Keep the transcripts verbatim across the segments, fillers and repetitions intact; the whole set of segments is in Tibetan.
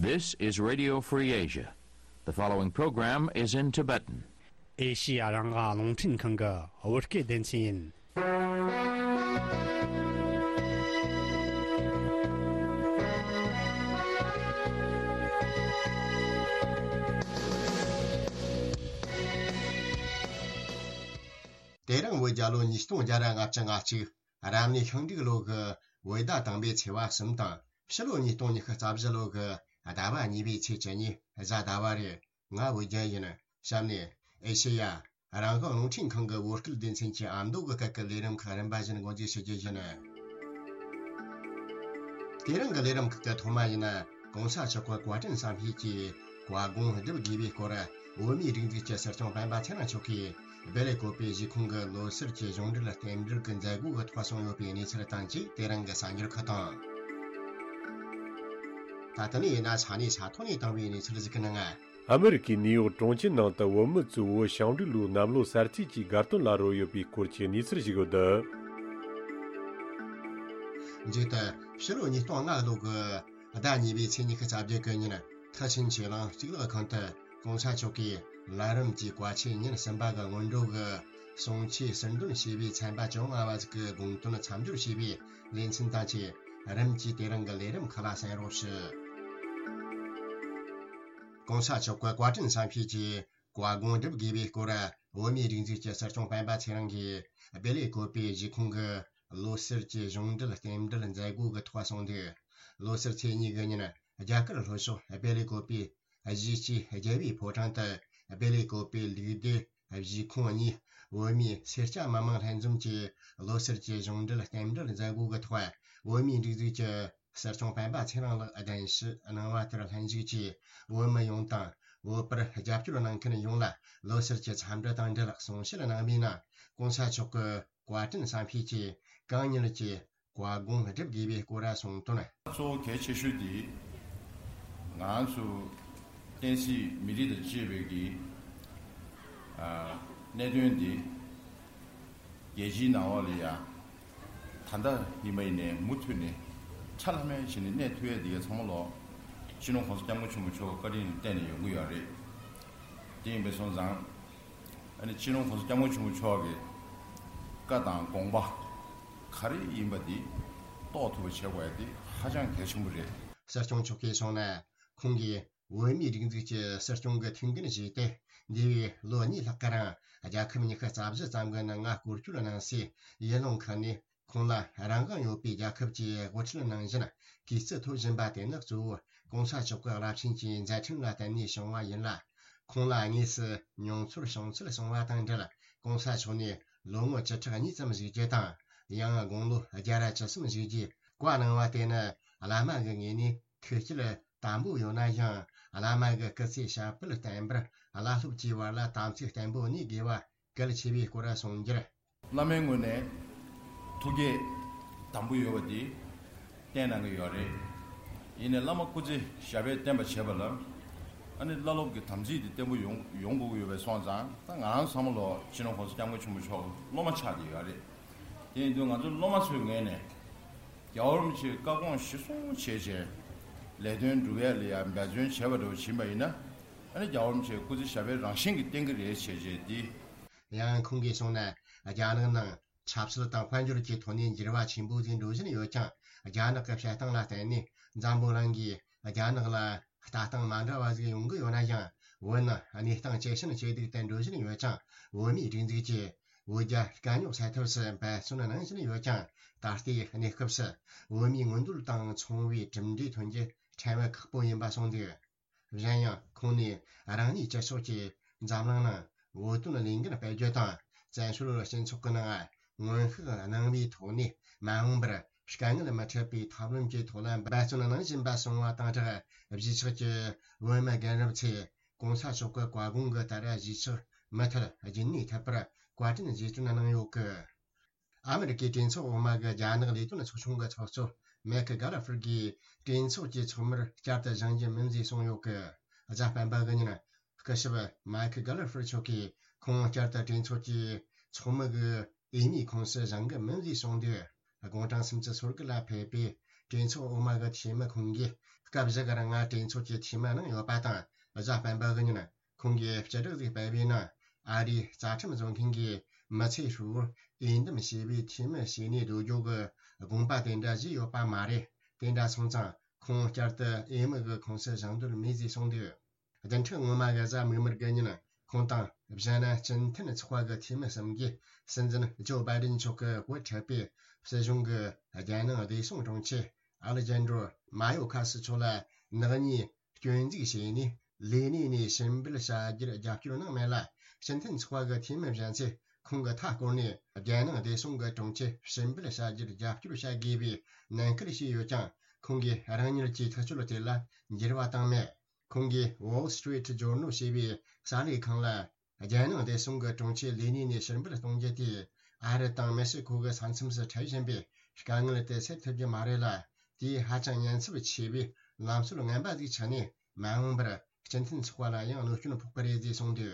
This is Radio Free Asia. The following program is in Tibetan. ཨེ་ཤི་ཡ་རང་དབང་རླུང་འཕྲིན་ཁང་གི་བོད་སྐད་སྡེ་ཚན་ཡིན། དེ་རིང་བོད་རྒྱལ་ལོ་ཉིས་སྟོང་བརྒྱ་ར་ལྔ་བཅུ་ང་གཅིག་རབ་གནས་ཤིང་འབྲུག་ལོ་གི་བོད་ཟླ་དང་པོའི་ཚེས་པ་གསུམ་དང་ཕྱི་ལོ་ཉིས་སྟོང་ཉི་ཤུ་རྩ་བཞི་ལོ་གི་ཟླ་བ་གཉིས་པའི་ཚེས་བཅུ་གཉིས་གཟའ་ཟླ་བ་རེད། ང་བོད་རྒྱལ་ཡིན། གཤམ་ནས་ཨེ་ཤེ་ཡ་རང་དབང་རླུང་འཕྲིན་ཁང་གི་བོད་སྐད་སྡེ་ཚན་གྱི་ཨ་མདོ་གི་སྐད་ཀྱི་ལས་རིམ་ཁག་རིམ་པ་བཞིན་འགོ་འཛུགས་ཞུ་རྒྱུ་ཡིན། དེ་རིང་གི་ལས་རིམ་ཁག་གི་ཐོག་མ་ཡིན་ན། གོང་ས་མཆོག་གི་བཀའ་དྲིན་བསམ་ཤེས་ཀྱིས་བཀའ་དགོངས་སྒྲུབ་དགོས་པའི་སྐོར་བོད་མིའི་སྒྲིག་འཛུགས་ཀྱི་སྲིད་སྐྱོང་སྤེན་པ་ཚེ་རིང་མཆོག་གིས་སྦེལ་ཀོབ་པའི་གཞིས་ཁོངས་ཀྱི་ལོ་སར་གྱི་གཞུང་འབྲེལ་རྟེན་འབྲེལ་གྱི་མཛད་སྒོ་གི་ཐོག་གསུངས་ཡོད་པའི་གནས་ཚུལ་དང་བཅས་དེ་རིང་གི་གསར་འགྱུར་ཁག་དང་། ད་ལྟ་ནས་ཡིན་ན་ས་གནས་ས་ཐོག་ནས་བཏང་བའི་གནས་ཚུལ་ཞིག་གི་ནང་། ཨ་མི་རི་ཀའི་ནིའུ་ཡོག་གྲོང་ཁྱེར་ནང་དུ་བོད་མི་ཚོས་བོད་ཞིང་འབྲོག་ལུའུ་གནམ་ལོ་གསར་ཚེས་ཀྱི་དགའ་སྟོན་ལ་རོལ་ཡོད་པའི་སྐོར་གྱི་གནས་ཚུལ་ཞིག་ཡོད་འདུག་མཇུག་ཏུ་ཕྱི་ལོ་ཉིས་སྟོང་ལྔ་ལོ་གི་ཟླ་གཉིས་པའི་ཚེས་ཉི་ཤུ་རྩ་བརྒྱད་གི་ཉིན་མཐར་ཕྱིན་ཆོས་གླིང་གཙུག་ལག་ཁང་དུ་གོང་ས་མཆོག་གིས་ལམ་རིམ་གྱི་བཀའ་ཆོས་ཉིན་གསུམ་པ་གི་སྔོན་འགྲོ་གི་གསུང་ཆོས་ཟུར་འདོན་བྱས་པའི་ཚན་པ་བཅོ་ལྔ་བ་ཟིག་གི་དགོངས་དོན་མཚམས་སྦྱོར་བྱས་པའི་ལེ་ཚན་དང་བཅས་རིམ་གྱིས་དེ་རིང་གི་ལས་རིམ་ཁག་ལ་གསན་རོགས་ཞུ། གོང་ས་མཆོག་གི་བཀའ་དྲིན་བསམ་ཤེས་ཀྱིས་བཀའ་དགོངས་སྒྲུབ་དགོས་པའི་སྐོར་བོད་མིའི་སྒྲིག་འཛུགས་ཀྱི་སྲིད་སྐྱོང་སྤེན་པ་ཚེ་རིང་གིས་སྦེལ་ཀོབ་པའི་གཞིས་ཁོངས་ཀྱི་ལོ་སར་གྱི་གཞུང་འབྲེལ་རྟེན་འབྲེལ་མཛད་སྒོ་གི་ཐོག་གསུངས་འདུག་ལོ་སར་ཚེས་གཉིས་གི་ཉིན་རྒྱ་གར་ལྷོ་ཕྱོགས་སྦེལ་ཀོབ་པའི་གཞིས་སྤྱི་རྒྱལ་བའི་ཕོ་བྲང་དུ་སྦེལ་ཀོབ་པའི་ལུགས་བདེ་གཞིས་ཁོངས་གཉིས་བོད་མིའི་སེར་སྐྱ་མི་མང་ལྷན་འཛོམས་ཀྱིས་ལོ་སར་གྱི་གཞུང་འབྲེལ་རྟེན་འབྲེལ་མཛད་སྒོ་གི་ཐོག་བོད་མིའི་སྒྲིག་འཛུགས་ཀྱི་སྲིད་སྐྱོང་སྤེན་པ་ཚེ་རིང་ལགས་གདན་ཞུ་གནང་བ་དེར་ལྷན་ཞུགས་ཀྱིས་བོད་མི་ཡོངས་དང་བོད་པར་རྒྱབ་སྐྱོར་གནང་མཁན་ཡོངས་ལ་ལོ་སར་གྱི་འཚམས་འདྲི་དང་འབྲེལ་གསུང་བཤད་གནང་བའི་ནང་གོང་ས་མཆོག་གི་བཀའ་དྲིན་བསམ་ཤེས་ཀྱིས་གང་མྱུར་གྱིས་བཀའ་དགོངས་སྒྲུབ་དགོས་པའི་སྐོར་གསུངས་དོན། གཙོ་བོ་གལ་ཆེ་ཤོས་དེ་ང་ཚོ་བསྟན་སྲིད་མི་རིགས་དང་བཅས་པའི་གི་གནད་དོན་འདི་རྒྱལ་སྤྱིའི་ནང་ལོགས་ལ་ཡ་ད་ལྟ་ཡིན་པ་ཡིན་ནའི་མུ་མཐུད་ནས་ཁྲ་ལྷམ་མེ་བྱས་ནས་གནས་ཐུབ་ཡ་འདི་ག་ཚང་མ་ལོག་སྤྱི་ནོར་༸གོང་ས་༸སྐྱབས་མགོན་ཆེན་པོ་མཆོག་གི་བཀའ་དྲིན་ལ་བརྟེན་ནས་ཡོང་གི་ཡོད་རེད། དེ་ཡིན་པ་སོང་ཙང་ཨ་ནི་སྤྱི་ནོར་༸གོང་ས་༸སྐྱབས་མགོན་ཆེན་པོ་མཆོག་གི་བཀའ་དང་དགོངས་པ་ག་རེ་ཡིན་པ་འདི་རྟོགས་ཐུབ་པ་བྱེད་དགོས་ཡ་འདི་ཧ་ཅང་གལ་ཆེན་པོ་རེད། སྲིད་སྐྱོང་མཆོག་གིས་གསུངས་ན། ཁོང་གིས་བོད་མིའི་སྒྲིག་འཛུགས་ཀྱི་སྲིད་སྐྱོང་གི་ཐུགས་འགན་བཞེས་ཏེ་འདས་པའི་ལོ་གཉིས་ལྷག་གི་རིང་རྒྱལ་ཁབ་ཉི་ཤུ་རྩ་བཞི་ཙམ་གྱི་ནང་ང་སྐོར་སྐྱོད་གནང་སའི་ཡུལ་ལུང་ཁག་ནས་ཁོང་ལ་རང་དབང་ཡོད་པའི་རྒྱལ་ཁབ་ཀྱི་དབུ་ཁྲིད་ནང་བཞིན་གུས་བརྩི་ཐོབ་བཞིན་པ་དེ་ནི་གཙོ་བོ་༸གོང་ས་མཆོག་གི་རླབས་ཆེན་གྱི་མཛད་འཕྲིན་ལ་བརྟེན་ནས་བྱུང་བ་ཡིན་ལ། ཁོང་ལ་དངོས་སུ་མྱོང་ཚོར་བྱུང་ཚུལ་གསུངས་པ་དང་འབྲེལ་༸གོང་ས་མཆོག་ནས་ལོ་ངོ་བཅུ་ཕྲག་གཉིས་ཙམ་བཞུགས་རྒྱུ་དང་། ཡང་དགུང་ལོ་བརྒྱ་ར་བཅུ་གསུམ་བཞུགས་རྒྱུའི་བཀའ་གནང་བ་དེ་ནི་བླ་མ་གི་ངོས་ནས་ཐུགས་བསྐྱེད་དམ་པོ་ཡོད་ན་ཡང་། བླ་མ་གི་སྐུ་ཚེ་ཞབས་པད་བརྟན་པར་བླ་སློབ་ཀྱི་བར་ལ་དམ་ཚིག་བརྟན་པོ་གནས་དགོས་པ་གལ་ཆེ་བའི་སྐོར་གསུངས་རྒྱུར། བླ་མའི་ངོས་ནས་ཐུགས་བསྐྱེད་དམ་པོ་ཡོད་པ་འདི་བསྟན་གནང་གི་ཡོད་རེད། ཡིན་ནའི་བླ་མ་སྐུ་ཚེ་ཞབས་པད་བརྟན་པ་བྱེད་པ་ལ་ཨ་ནི་བླ་སློབ་ཀྱི་དམ་ཚིག་འདི་བརྟན་པོ་ཡོང་ཡོང་དགོས་ཀྱི་ཡོད་པ་སོང་ཙང་། ད་ང་རང་ཚང་མ་ལོ་སྤྱི་ནོར་༸གོང་ས་༸སྐྱབས་མགོན་ཆེན་པོ་མཆོག་སློབ་མ་ཆགས་བསྡད་ཡོད་རེད། དེ་ཡིན་དུས་ང་ཚོ་སློབ་མ་ཚོའི་ངོས་ནས་རྒྱལ་བ་རིན་པོ་ཆེའི་བཀའ་དགོངས་གཞིར་བཟུང་བྱས་བྱས་ལས་དོན་སྒྲུབ་ཡ་ལ་ཡ་འབད་བརྩོན་བྱས་པ་འདྲ་བོ་ཕྱིན་པ་ཡིན་ན། ཨ་ནི་རྒྱལ་བ་རིན་པོ་ཆེའི་སྐུ་ཚེ་ཞབས་པད་རང་བཞིན་གྱིས་བརྟན་གྱི་རེད་བྱས་བྱས་འདི། ཡང་ཁོང་གིས་གསུངས་ན། རྒྱ་ནག་ནང་ཆབ་སྲིད་དང་དཔལ་འབྱོར་གྱི་ཐོག་ནས་འགྱུར་བ་ཆེན་པོ་ཟིག་འགྲོ་བཞིན་ཡོད་ཀྱང་། རྒྱ་ནག་གི་བྱེད་སྟངས་ལ་བརྟེན་ནས་འཛམ་བུ་གླིང་གིས་རྒྱ་ནག་ལ་ལྟ་སྟངས་མ་འདྲ་བ་ཟིག་ཡོང་གི་ཡོད་ན་ཡང་། བོད་ནི་གནས་སྟངས་ཇེ་ཞན་ཇེ་སྡུག་ཏུ་འགྲོ་བཞིན་ཡོད་ཀྱང་། བོད་མིའི་སྒྲིག་འཛུགས་ཀྱིས་བོད་རྒྱ་དཀའ་རྙོག་སེལ་ཐབས་སུ་འབད་བརྩོན་གནང་བཞིན་ཡོད་ཀྱང་། ད་ལྟའི་གནས་སྐབས་སུ་བོད་མིའི་མངོན་འདོད་དང་མཚུངས་པའི་གྲུབ་འབྲས་ཐོན་རྒྱུ་ཕྲན་བུ་ཁག་པོ་ཡིན་པ་གསུངས་འདུག་གཞན་ཡང་ཁོང་ནས་རང་ཉིད་སྤྱི་ཚོགས་ཀྱིས་འཛམ་གླིང་ནང་བོད་དོན་ལས་འགན་སྤེལ་རྒྱུ་དང་། བཙན་བྱོལ་སྤྱི་ཚོགས་ཀྱི་ནང་སྔོན་དཔག་གནང་བའི་ཐོག་ནས་མ་འོངས་པར་དཀའ་ངལ་མི་འཕྲད་པའི་ཐབས་ལམ་གྱི་ཐོག་ལ་འབད་བརྩོན་གནང་བཞིན་པ་གསུངས་པ་དང་སྦྲགས། གཞིས་ཆགས་ཀྱི་བོད་མི་རྒན་རབས་ཚོས་༸གོང་ས་མཆོག་གི་བཀའ་དགོངས་ཀྱི་ལྟར་གཞིས་ཆགས་མུ་མཐུད་རྒྱུན་གནས་ཐུབ་པར་བཀའ་དྲིན་རྗེས་དྲན་གནང་ཡོད་སྐད། ཨ་མི་རི་ཀའི་གྲོས་ཚོགས་འོག་མ་གི་རྒྱ་ནག་ལས་དོན་ཚོགས་ཆུང་གི་ཚོགས་གཙོ་མེག་གྷ་ལ་ཧྥར་གྱིས་གྲོས་ཚོགས་ཀྱི་ཚོགས་མིར་བསྐྱར་དུ་བཞེངས་རྒྱུ་མིན་ཞེས་གསུངས་ཡོད་སྐད། གཟའ་སྤེན་པ་གི་ཉིན་སྐུ་ཞབས་མེག་གྷ་ལ་ཧྥར་མཆོག་གིས་ཁོང་བསྐྱར་དུ་གྲོས་ཚོགས་ཀྱི་ཚོགས་མི་གི་འོས་མིའི་ཁོངས་སུ་བཞེངས་གི་མིན་ཞེས་གསུངས་དུས། དགུང་གྲངས་སུམ་ཅུ་སོ་དགུ་ལ་ཕེབས་པའི་ གྲོས་ཚོགས་འོག་མ་གི་འཐུས་མི་ཁོང་གིས་སྐབས་བཞི་གི་རིང་ང་གྲོས་ཚོགས་ཀྱི་འཐུས་མི་ནང་ཡོད་པ་དང་། གཟའ་སྤེན་པ་གི་ཉིན་ཁོང་གིས་སྤྱི་བསྒྲགས་ཤིག་སྤེལ་བའི་ནང་། ཨ་རིའི་རྩ་ཁྲིམས་བཟོ་མཁན་གྱིས་མི་ཚེ་ཧྲིལ་པོར་འོས་འདེམས་བྱས་པའི་འཐུས་མི་བྱས་ནས་སྡོད་རྒྱུ་གི་དགོངས་པ་དེ་འདྲ་བཞེས་ཡོད་པ་མ་རེད། དེ་འདྲ་སོང་ཙང་ཁོང་བསྐྱར་དུ་འོས་མི་གི་ཁོངས་སུ་བཞེངས་འདོད་མེད་ཅེས་གསུངས་འདུག་བདུན་ཕྲག་སྔོན་མ་གི་གཟའ་མིག་དམར་གི་ཉིན་ཁོང་དང་། གཞན་སྤྱི་མཐུན་ཚོགས་པ་གི་འཐུས་མི་གསུམ་གྱིས་སྲིད་འཛིན་ཇོ་བྷའི་ཌེན་མཆོག་གི་བུ་ཁྲིད་པའི་སྲིད་གཞུང་གི་རྒྱལ་ནང་བདེ་སྲུང་དྲུང་ཆེ་ཨ་ལེ་ཇན་དྲོ་མ་ཡོ་ཁ་སི་མཆོག་ལ་ནག་ཉེས་སྐྱོན་འཛུགས་བྱས་ནས་ལས་གནས་ནས་ཕྱིར་འབུད་བྱ་རྒྱུར་རྒྱབ་སྐྱོར་གནང་མེད་ལ། སྤྱི་མཐུན་ཚོགས་པ་གི་འཐུས་མི་གཞན་ཚོས་ཁོང་གི་མཐའ་བསྐོར་ནས་རྒྱལ་ནང་བདེ་སྲུང་གི་དྲུང་ཆེ་ཕྱིར་འབུད་བྱ་རྒྱུར་རྒྱབ་སྐྱོར་བྱ་དགོས་པའི་ནན་སྐུལ་བྱས་ཡོད་ཀྱང་། ཁོང་གིས་རང་ཉིད་ཀྱི་ཐག་གཅོད་དེ་ལ་འགྱུར་བ་བཏང་མེད། ཁོང་གིས་Wall Street Journal ཞེས་པའི་གསར་ལས་ཁང་ལ། རྒྱལ་ནང་བདེ་སྲུང་གི་དྲུང་ཆེ་ལས་གནས་ནས་ཕྱིར་འབུད་གཏོང་རྒྱུ་དེས་ཨ་རི་དང་མེག་སི་ཁོ་གི་ས་མཚམས་སུ་འཕྲད་བཞིན་པའི་དཀའ་ངལ་དེ་སེལ་ཐུབ་རྒྱུ་མ་རེད་ལ། དེས་ཧ་ཅང་ཉེན་ཚབས་ཆེ་བའི་ལམ་སྲོལ་ངན་པ་ཞིག་ཆགས་ནས། མ་འོངས་པར་སྤྱི་མཐུན་ཚོགས་པ་ལ་ཡང་གནོད་སྐྱོན་ཕོག་གི་རེད་ཅེས་གསུངས་འདུག་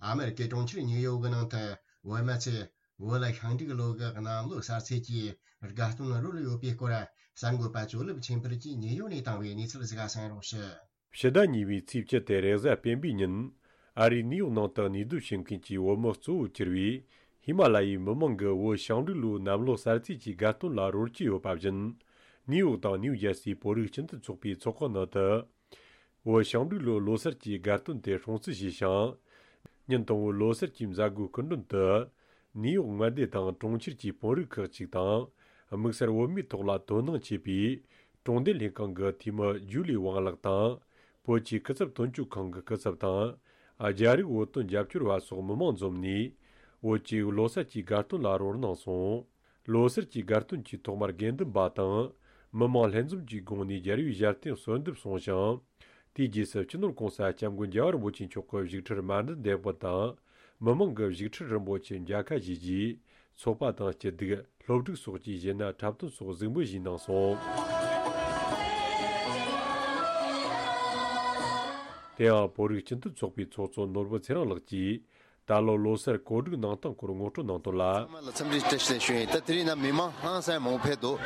ཨ་མེ་རི་ཀའི་གྲོང་ཁྱེར་ཉིའུ་ཡོག་གི་ནང་དུ་བོད་མི་ཚོས་བོད་ལ་ཤིང་འབྲུག་ལོ་གི་གནམ་ལོ་གསར་ཚེས་ཀྱི་དགའ་སྟོན་རོལ་ཡོད་པའི་སྐོར། གསར་འགོད་པ་ཇོ་ལེབ་ཆོས་འཕེལ་གྱིས་ཉིའུ་ཡོག་ནས་བཏང་བའི་གནས་ཚུལ་ཞིག་གསན་རོགས་ཞུ། ཕྱི་ཟླ་གཉིས་པའི་ཚེས་བཅུ་སྟེ་རེས་གཟའ་སྤེན་པའི་ཉིན། ཨ་རིའི་ནིའུ་ཡོག་ནང་དུ་གནས་སྡོད་བྱེད་མཁན་གྱི་བོད་མི་གཙོ་བོར་གྱུར་བའི་ཧི་མ་ལ་ཡའི་མི་མང་གིས་བོད་ཞིང་འབྲུག་ལོའི་གནམ་ལོ་གསར་ཚེས་ཀྱི་དགའ་སྟོན་ལ་རོལ་གྱི་ཡོད་པ་བཞིན། ནིའུ་ཡོག་དང་ནིའུ་ཇར་སིའི་བོད་རིགས་སྤྱི་མཐུན་ཚོགས་པའི་ཚོགས་ཁང་ནང་དུ། བོད་ཞིང་འབྲུག་ལོའི་ལོ་གསར་གྱི་དགའ་སྟོན་དེ་སྲུང་བརྩི་བྱས་ཤིང་། ཉིན་དང་པོའི་ལོ་གསར་གྱི་མཛད་སྒོའི་སྐུ་མགྲོན་དུ། ནིའུ་ཡོག་མངའ་སྡེ་དང་གྲོང་ཁྱེར་གྱི་དཔོན་རིགས་ཁག་ཅིག་དང་། དམིགས་བསལ་བོད་མིའི་ཐོག་ལ་དོ་སྣང་ཆེ་བའི་གྲོང་སྡེ་ལྷན་ཁང་གི་འཐུས་མི་ཇུ་ལི་ཝང་ལགས་དང་། བོད་ཀྱི་སྐུ་ཚབ་དོན་གཅོད་ཁང་གི་སྐུ་ཚབ་དང་། རྒྱ་རིགས་བོད་དོན་རྒྱབ་སྐྱོར་བ་སོགས་མི་མང་འཛོམས་ནས། བོད་ཀྱི་ལོ་གསར་གྱི་དགའ་སྟོན་ལ་རོལ་གནང་སོང་། ལོ་གསར་གྱི་དགའ་སྟོན་གྱི་ཐོག་མར་དགེ་འདུན་པ་དང་། མི་མང་ལྷན་འཛོམས་ཀྱི་སྒོ་ནས་རྒྱལ་བའི་ཞལ་རྟེན་གསོལ་འདེབས་སོང་ཞིང་། དེའི་རྗེས་སུ་སྤྱི་ནོར་༸གོང་ས་༸སྐྱབས་མགོན་རྒྱལ་བ་རིན་པོ་ཆེ་མཆོག་གི་བཞུགས་ཁྲིར་མཎྜལ་འདེགས་འབུལ་དང་། མི་མང་གིས་བཞུགས་ཁྲི་རིན་པོ་ཆེར་མཇལ་ཁ་བཞེས་རྗེས། ཚོགས་པ་དང་སྐྱིད་སྡུག་སློབ་ཕྲུག་སོགས་ཀྱིས་གཞས་སྣ་འཁྲབ་སྟོན་སོགས་གཟིགས་འབུལ་ཞུས་གནང་སོང་། དེ་ཡང་བོད་རིགས་སྤྱི་མཐུན་ཚོགས་པའི་ཚོགས་གཙོ་ནོར་བུ་ཚེ་རིང་ལགས་ཀྱིས། ད་ལོ་ལོ་གསར་གོ་སྒྲིག་གནང་སྟངས་སྐོར་ངོ་སྤྲོད་གནང་དོན་ལ། ཚང་མ་ལ་འཚམས་འདྲི་བཀྲ་ཤིས་བདེ་ལེགས་ཞུ་ཡིན། ད་དེ་རིང་ན་མི་མང་ཧང་སང་མང་པོ་ཕེབས་འདུག་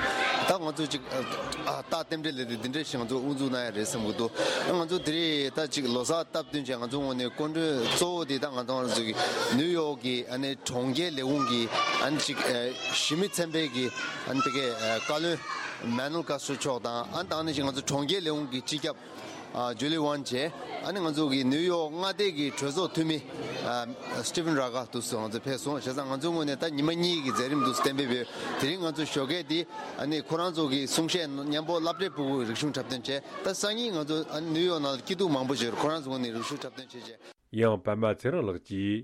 ད་ང་ཚོ་ཅིག་ཨ་རྟགས་རྟེན་འབྲེལ་ལས་དེ་འདི་འདྲ་ཞིག་ང་ཚོ་དབུ་འཛུགས་གནང་ཡ་རེད་བསམ་གྱི་འདུག་ང་ཚོ་དེ་རིང་ད་ཅིག་ལོ་གསར་སྟབས་བསྟུན་བྱས། ང་ཚོ་ངོས་ནས་སྐུ་མགྲོན་གཙོ་བོ་དེ་ད་ང་ཚོ་ང་ཚོ་གི་ནིའུ་ཡོག་གི་ཨ་ནི་གྲོང་ཁྱེར་ལས་ཁུངས་ཀྱི་ཨ་ནི་ཅིག་ཨ་གཞི་མི་ཚན་པའི་གི་ཨ་ནི་དེ་གའི་ཨ་བཀའ་བློན་མན་ནལ་ཀ་སུ་མཆོག་དང་། ཨ་ནི་ད་ཨ་ནི་ཅིག་ང་ཚོ་གྲོང་ཁྱེར་ལས་ཁུངས་ཀྱི་སྤྱི་ཁྱབ་ཨ་ཇུ་ལི་ཝན་བྱས། ཨ་ནི་ང་ཚོ་གི་ནིའུ་ཡོག་མངའ་སྡེ་གི་གྲོས་ཚོགས་འཐུས་མི་ཨ་སི་ཊི་ཕན་ར་གྷ་དུ་སུ་ང་ཚོ་ཕེབས་སོང་། བྱས་ཙང་ང་ཚོའི་ངོས་ནས་ད་ཉི་མ་གཉིས་ཀྱི་མཛད་རིམ་དུ་གཏན་འབེབས་ཡོད། དེ་རིང་ང་ཚོ་ཞོགས་ཀས་དེ་ཨ་ནི་ཁོ་རང་ཚོ་གི་གསུང་བཤད་མཉམ་པོ་སློབ་གྲྭའི་ཕྲུ་གུ་རིག་གཞུང་འཁྲབ་སྟོན་བྱས། ད་སང་ཉིན་ང་ཚོ་ཨ་ནི་ནིའུ་ཡོག་ནང་ལ་སྐྱིད་སྡུག་མང་པོ་ཞིག་ཡོད། ཁོ་རང་ཚོའི་ངོས་ནས་རིག་གཞུང་འཁྲབ་སྟོན་བྱས་བྱས། ཡང་པད་མ་ཚེ་རིང་ལགས་ཀྱིས།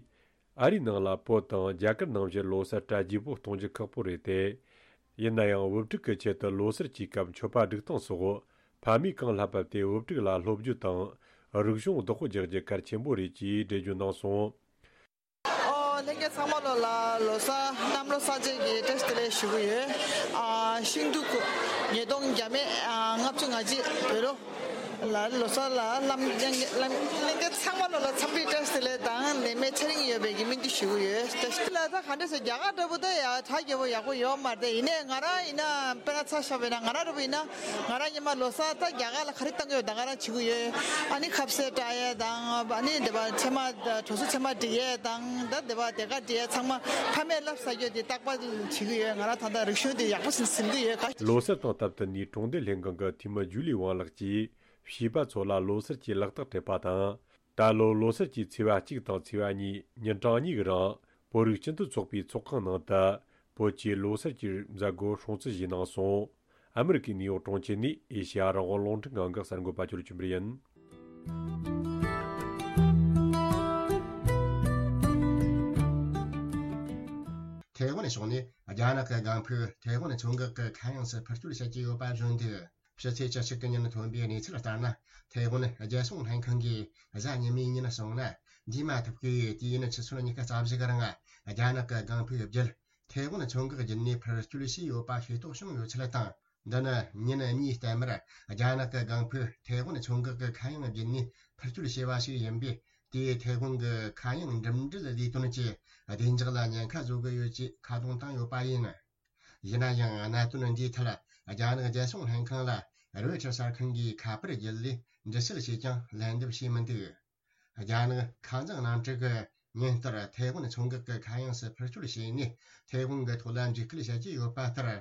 ཨ་རིའི་ནང་ལ་བོད་དང་རྒྱ་གར་ནང་བཞིན་ལོ་གསར་གྲ་རྒྱས་པོ་གཏོང་རྒྱུ་ཁག་པོ་རེད་དེ། ཡིན་ན་ཡང་བུ་ཕྲུག་གི་ཆེད་དུ་ལོ་གསར་གྱི་སྐབས་མཆོད་པ་སྒྲིག་སྟངས་སོགས་ཕ་མས་གང་ལྷབ་ལྷབ་སྟེ་བུ་ཕྲུག་ལ་སློབ་རྒྱུ་དང་རིག་གཞུང་བདག་པོ་རྒྱག་རྒྱུ་གལ་ཆེན་པོ་རེད་ཅེས་འགྲེལ་བརྗོད་གནང་སོང་། ཨོ། ལྷན་རྒྱས་ཚང་མ་ལོ་ལ་ལོ་གསར་གནམ་ལོ་གསར་བྱེད་ཀྱི་བཀྲ་ཤིས་བདེ་ལེགས་ཞུ་གི་ཡོད། ཨ་ཤིང་འབྲུག་ཉིས་སྟོང་བརྒྱ་མེད་ཨ་ལྔ་བཅུ་ང་གཅིག་བོད་ལོ། ལ་ལོ་གསར་ལ་ལམ་ལྷན་རྒྱས་ཚང་མ་ལོ་ལ་འཚམས་འདྲི་བཀྲ་ཤིས་བདེ་ལེགས་དང་ནད་མེད་ཚེ་རིང་ཡོད་པའི་གི་སྨོན་འདུན་ཞུ་གི་ཡོད། བཀྲ་ཤིས་བདེ་ལེགས། ད་ག་འདྲ་ཟེར། རྒྱ་གར་འདྲ་པོ་ད་ཡ་གྲ་རྒྱས་པོ་ཡག་པོ་ཡོད་མ་རེད། ཡིན་ནའི་ང་རང་ཡིན་ན་དཔེར་ན་ཆ་བཞག་པ་ཡིན་ན་ང་རང་འདྲ་པོ་ཡིན་ན་ང་རང་སྔོན་མ་ལོ་གསར་ད་རྒྱ་གར་ལ་ག་རེ་བཏང་གི་ཡོད་ད་ང་རང་བྱེད་གི་ཡོད། ཨ་ནི་ཁ་ཟས་སྤྲད་ཡས་དང་ཨ་ནི་འདི་པ་ཚེས་མ་གྲོ་སོ་ཚེས་མ་སྒྲིག་ཡས་དང་ད་འདི་པ་དེ་ག་སྒྲིག་ཡས་ཚང་མ་ཕ་མས་ལབ་ས་རྒྱུ་དེ་རྟག་པར་བྱེད་ཀྱི་ཡོད། ང་རང་ད་ལྟ་རིག་གཞུང་དེ་ཡག་པོ་ཟིན་ཟིན་གྱི་ཡོད་ག་ལོ་གསར་དང་སྟབས་བསྟུན་ནས་གྲོང་སྡེ་ལྷན་ཁང་གི་འཐུས་མི་ཇུ་ལི་ཝང་ལགས་ཀྱིས་བྱིས་པ་ཚོ་ལ་ལོ་གསར་གྱི་ལག་རྟགས་སྤྲད་པ་དང་། ད་ལོ་ལོ་གསར་གྱི་ཚེས་པ་གཅིག་དང་ཚེས་པ་གཉིས་ཉིན་གྲངས་གཉིས་ཀྱི་རིང་བོད་རིགས་སྤྱི་མཐུན་ཚོགས་པའི་ཚོགས་ཁང་ནང་དུ་བོད་ཀྱི་ལོ་གསར་གྱི་མཛད་སྒོ་སྲུང་བརྩི་བྱས་གནང་སོང་། ཨ་མི་རི་ཀའི་ནིའུ་ཡོག་གྲོང་ཁྱེར་ནས་ཨེ་ཤེ་ཡ་རང་དབང་རླུང་འཕྲིན་ཁང་གི་གསར་འགོད་པ་ཇོ་ལེབ་ཆོས་འཕེལ་ཡིན། ཐའེ་ཝན་ཕྱོགས་ནས་རྒྱ་ནག་གི་ལྒང་ཕུ་ཐའེ་ཝན་མཚོ་འགག་གི་ཁ་གཡང་སུ་འཕུར་སྐྱོད་བྱེད་ཀྱི་ཡོད་པ་བཟོ་འདུག་ཕྱི་ཚེས་བཅུ་གཅིག་གི་ཉིན་ཐོན་པའི་གནས་ཚུལ་ལྟར་ན། ཐའེ་ཝན་རྒྱལ་སྲུང་ལྷན་ཁང་གིས་གཟའ་ཉི་མའི་ཉིན་སོང་ན་འདས་མ་ཐུབ་ཀྱི་དུས་ཡུན་ཆུ་ཚོད་ཉི་ཤུ་རྩ་བཞི་གི་རིང་རྒྱ་ནག་གི་ལྒང་ཕུའི་བརྒྱུད་ཐའེ་ཝན་མཚོ་འགག་བརྒྱུད་ནས་འཕུར་སྐྱོད་བྱས་ཡོད་པ་ཤེས་རྟོགས་བྱུང་ཡོད་ཚུལ་དང་། འདི་ནི་ཉིན་གཉིས་ལྟར་མར་རྒྱ་ནག་གི་ལྒང་ཕུ་ཐའེ་ཝན་མཚོ་འགག་གི་ཁ་གཡང་བརྒྱུད་ནས་འཕུར་སྐྱོད་བྱས་པ་ཞིག་ཡིན་པས། དེས་ཐའེ་ཝན་གྱི་ཁ་གཡང་འགྲིམ་འགྲུལ་ལས་དོན་གྱི་བདེ་འཇགས་ལ་ཉེན་ཁ་བཟོ་གི་ཡོད་ཅེས་ཁ་རྡུང་བཏང་ཡོད་པ་ཡིན། ཡིན་ན་ཡང་གནད་དོན་འདིའི་ཐད་རྒྱ་ནག་རྒྱལ་སྲུང་ལྷན་ཁང་ལ་རོའི་ཊར་གསར་ཁང་གིས་ཁ་པར་བརྒྱུད་ལས་འདྲི་གསེལ་བྱས་ཀྱང་ལན་འདེབས་བྱས་མི་འདུག་རྒྱ་ནག་ཁ་མཛངས་གནམ་གྲུ་གིས་ཉིན་ལྟར་ཐའེ་ཝན་མཚོ་འགག་གི་ཁ་གཡང་སུ་འཕུར་སྐྱོད་བྱས་ནས། ཐའེ་ཝན་གྱི་ཐོག་ལ་འཇིགས་སྐུལ་བྱེད་ཀྱི་ཡོད་པ་ལྟར།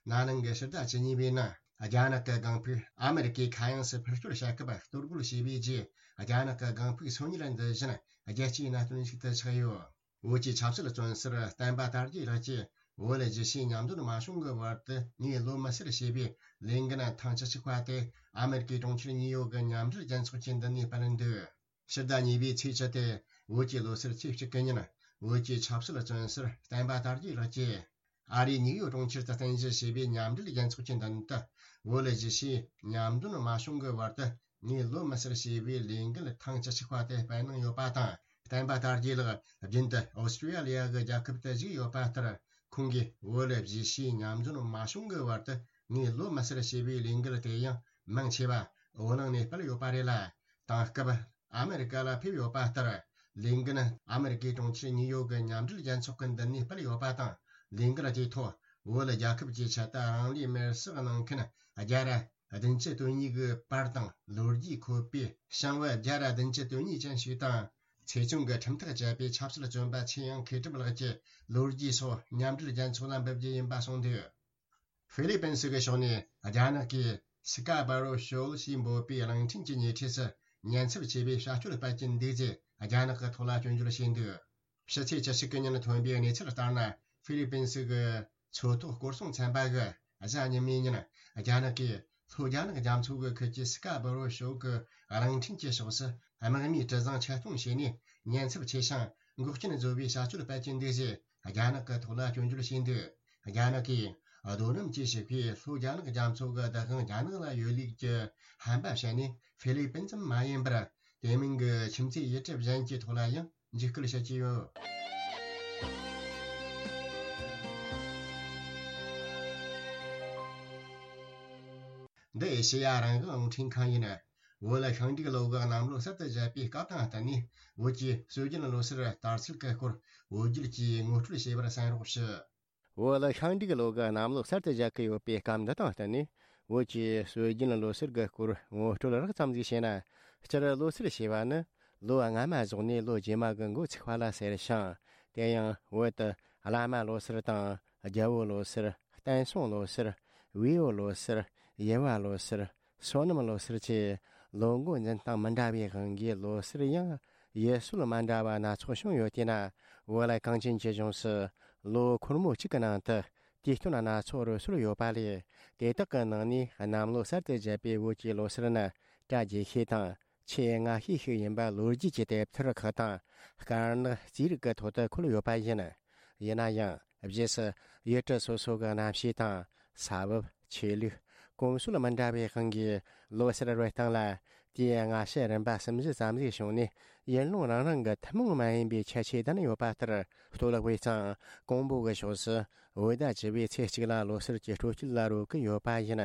ན་ནིང་གི་ཕྱི་ཟླ་བཅུ་གཉིས་པའི་ནང་རྒྱ་ནག་གི་ལྒང་ཕུག་ཨ་མེ་རི་ཀའི་ཁ་གཡང་སུ་འཕུར་སྐྱོད་བྱ་སྐབས་གཏོར་རྒོལ་བྱས་པའི་རྗེས། རྒྱ་ནག་གི་ལྒང་ཕུག་སོ་གཉིས་ལ་འཛུལ་བཞིན་རྒྱལ་སྤྱིའི་གནད་དོན་ཞིག་ཏུ་ཆགས་ཡོད། བོད་ཀྱི་ཆབ་སྲིད་བཙོན་ཟུར་བསྟན་པ་དར་རྒྱས་ལགས་ཀྱིས་བོད་ལ་རྒྱལ་སྤྱིའི་མཉམ་འདོན་མ་བྱུང་གི་བར་དུ་ངས་ལོ་མི་སེར་ཞེས་པའི་ལས་འགན་ཐེངས་བཅུ་གཅིག་པ་དེ་ཨ་མེ་རི་ཀའི་གྲོང་ཁྱེར་ནིའུ་ཡོག་གི་མཉམ་འབྲེལ་རྒྱལ་ཚོགས་ཀྱི་མདུན་ནས་སྤེལ་འདུག་ཕྱི་ཟླ་གཉིས་པའི་ཚེས་བཅུ་སྟེ་བོད་ཀྱི་ལོ་སར་ཚེས་གཅིག་གི་ཉིན། བོད་ཀྱི་ཆབ་སྲིད་བཙོན་ཟུར་བསྟན་པ་དར་རྒྱས་ལགས་ཀྱིས་ཨ་རིའི་ནིའུ་ཡོག་གྲོང་ཁྱེར་དུ་རྟེན་གཞི་བྱས་པའི་མཉམ་འབྲེལ་རྒྱལ་ཚོགས་ཀྱི་མདུན་དུ། བོད་ལ་གཞིས་བྱེས་མཉམ་འདོན་མ་བྱུང་གི་བར་དུ་ངས་ལོ་མི་སར་ཞེས་པའི་ལས་འགུལ་ཐེངས་བཅུ་གཅིག་པ་དེ་སྤེལ་གནང་ཡོད་པ་དང་། བསྟན་པ་དར་རྒྱས་ལགས་རྒྱུན་དུ་ཨོ་སི་ཀྲི་ཡ་ལི་ཡ་གི་རྒྱལ་ཁབ་ཏུ་བཞུགས་ཡོད་པ་ལྟར། ཁོང་གིས་བོད་ལ་གཞིས་བྱེས་མཉམ་འདོན་མ་བྱུང་གི་བར་དུ་ངས་ལོ་མི་སར་ཞེས་པའི་ལས་འགུལ་དེ་ཡང་མང་ཆེ་བ་བོད་ནང་ནས་སྤེལ་ཡོད་པ་རེད་ལ། དེང་སྐབས་ཨ་མེ་རི་ཀ་ལ་ཕེབས་ཡོད་པ་ལྟར། ལས་འགུལ་ནི་ཨ་མེ་རི་ཀའི་གྲོང་ཁྱེར་ནིའུ་ཡོག་གི་མཉམ་འབྲེལ་རྒྱལ་ཚོགས་ཀྱི་མདུན་ནས་སྤེལ་ཡོད་པ་དང་། ལས་འགུལ་དེའི་ཐོག་བོད་རྒྱལ་ཁབ་ཀྱི་ཆེད་དུ་རང་ལུས་མེར་སྲེག་གནང་མཁན་བརྒྱ་ར་བདུན་ཅུ་དོན་གཉིས་ཀྱི་པར་དང་ལོ་རྒྱུས་འཁོད་པའི་ཞང་བོད་བརྒྱ་ར་བདུན་ཅུ་དོན་གཉིས་ཅན་ཞིག་དང་། ཆེད་སྦྱོང་གི་ཁྲིམས་ཐག་བཅད་པའི་ཆབ་སྲིད་བཙོན་པ་ཆེ་ཡང་མཁས་གྲུབ་ལགས་ཀྱི་ལོ་རྒྱུས་སོགས་མཉམ་འབྲེལ་རྒྱལ་ཚོགས་ལ་འབུལ་རྒྱུ་ཡིན་པ་གསུངས་འདུག་ཧྥི་ལི་པིན་སི་གི་ཕྱོགས་ནས་རྒྱ་ནག་གིས་སི་ཀ་འབར་རོ་ཤོལ་ཞེས་འབོད་པའི་གླིང་ཕྲན་གྱི་ཉེ་འཁྲིས་སུ་ཉེན་ཚབས་ཆེ་བའི་བྱ་སྤྱོད་སྤེལ་གྱིན་འདུག་ཅེས་རྒྱ་ནག་གི་ཐོག་ལ་སྐྱོན་བརྗོད་བྱས་འདུག་ཕྱི་ཚེས་བཅུ་གཅིག་གི་ཉིན་ཐོན་པའི་གནས་ཚུལ་ལྟར་ན། ཧྥི་ལི་པིན་སི་གི་མཚོ་ཐོག་སྐོར་སྲུང་ཚན་པ་གིས་གཟའ་ཉི་མའི་ཉིན་རྒྱ་ནག་གིས་ལྷོ་རྒྱ་ནག་རྒྱ་མཚོ་གི་ཁུལ་གྱི་སི་ཀ་འབར་རོ་ཤོལ་གྱི་གླིང་ཕྲན་གྱི་ཕྱོགས་སུ་དམག་མིའི་གྲུ་གཟིངས་ཆེད་གཏོང་བྱས་ནས་ཉེན་ཚབས་ཆེ་ཞིང་འགོག་རྐྱེན་བཟོ་བའི་བྱ་སྤྱོད་སྤེལ་གྱིན་འདུག་ཅེས་རྒྱ་ནག་གི་ཐོག་ལ་སྐྱོན་བརྗོད་བྱས་འདུག་རྒྱ་ནག་གིས་རྡོ་སྣུམ་གྱིས་ཕྱུག་པའི་ལྷོ་རྒྱ་ནག་རྒྱ་མཚོ་གི་བདག་དབང་རྒྱ་ནག་ལ་ཡོད་ལུགས་ཀྱི་ཧམ་པ་བཤད་ནས། ཧྥི་ལི་པིན་ཙམ་མ་ཡིན་པར་དེ་མིན་གྱི་ཁྱིམ་མཚེས་ཡུལ་གྲུ་གཞན་གྱི་ཐོག་ལ་ཡང་འཇིགས་སྐུལ་བྱེད་ཀྱི་ཡོད། འདི་ཨེ་ཤེ་ཡ་རང་དབང་རླུང་འཕྲིན་ཁང་ཡིན། བོད་ལ་ཤིང་འབྲུག་ལོ་གི་གནམ་ལོ་གསར་དུ་བཞད་པའི་སྐབས་དང་བསྟུན་ནས། བོད་ཀྱི་སྲོལ་རྒྱུན་ལོ་སར་དར་ཚུལ་གྱི་སྐོར་བོད་བརྒྱུད་ཀྱིས་ངོ་སྤྲོད་བྱས་པར་གསན་རོགས་ཞུ། བོད་ལ་ཤིང་འབྲུག་ལོ་གི་གནམ་ལོ་གསར་དུ་བཞད་ཀྱི་ཡོད་པའི་སྐབས་འདི་དང་བསྟུན་ནས། བོད་ཀྱི་སྲོལ་རྒྱུན་ལོ་སར་གྱི་སྐོར་ངོ་སྤྲོད་རགས་ཙམ་ཞིག་བྱས་ན། སྤྱིར་ལོ་སར་ཞེས་པ་ནི་ལོ་སྔ་མ་རྫོགས་ནས་ལོ་རྗེས་མ་གི་འགོ་ཚུགས་པ་ལ་ཟེར་ཞིང་། དེ་ཡང་བོད་དུ་བླ་མ་ལོ་སར་དང་། རྒྱལ་པོ་ལོ་སར། བསྟན་སྲུང་ལོ་སར། བེའུ་ལོ་སར། ཡེར་བ་ལོ་སར། སོ་ནམ་ལོ་སར་བཅས་ལོ་འགོ་འཛིན་སྟངས་མི་འདྲ་བའི་དབང་གིས་ལོ་སར་ཡང་ཡུལ་སྲོལ་མ་འདྲ་བ་སྣ་ཚོགས་བྱུང་ཡོད་དེས་ན། བོད་ལ་གངས་ཅན་གྱི་ལྗོངས་སུ་ལོ་འཁོར་མོ་གཅིག་གི་ནང་དུ་དུས་སྟོན་སྣ་ཚོགས་རོལ་སྲོལ་ཡོད་པ་ལས། དེ་དག་གི་ནང་ནས་གནམ་ལོ་གསར་དུ་བཞད་པའི་བོད་ཀྱི་ལོ་སར་ནི་གྲ་རྒྱས་ཤོས་དང་ཆེས་སྔ་ཤོས་ཤིག་ཡིན་པ་ལོ་རྒྱུས་ཀྱི་དེབ་ཐེར་ཁག་དང་དཀར་ནག་རྩིས་རིག་གི་ཐོག་ཏུ་འཁོད་ཡོད་པ་ཡིན། ཡིན་ན་ཡང་རྗེས་སུ་ཡུལ་གྲུ་སོ་སོ་གི་གནམ་གཤིས་དང་ས་བབ། ཆོས་ལུགས། གོམས་སྲོལ་མི་འདྲ་བའི་དབང་གིས་ལོ་སར་རོལ་སྟངས་ལ་དུས་སྔ་ཕྱི་རིམ་པ་གསུམ་བཞི་ཙམ་ཞིག་བྱུང་ནས། ཡུལ་ལུང་རང་རང་གི་ཐུན་མོང་མ་ཡིན་པའི་ཁྱད་ཆོས་ལྡན་ཡོད་པ་ལྟར། སྟོད་ལུང་བའི་གཙང་ཀོང་པོ་གི་ཕྱོགས་སུ་བོད་ཟླ་བཅུ་པའི་ཚེས་གཅིག་ལ་ལོ་སར་གྱི་སྤྲོ་སྐྱིད་ལ་རོལ་གྱི་ཡོད་པ་ཡིན།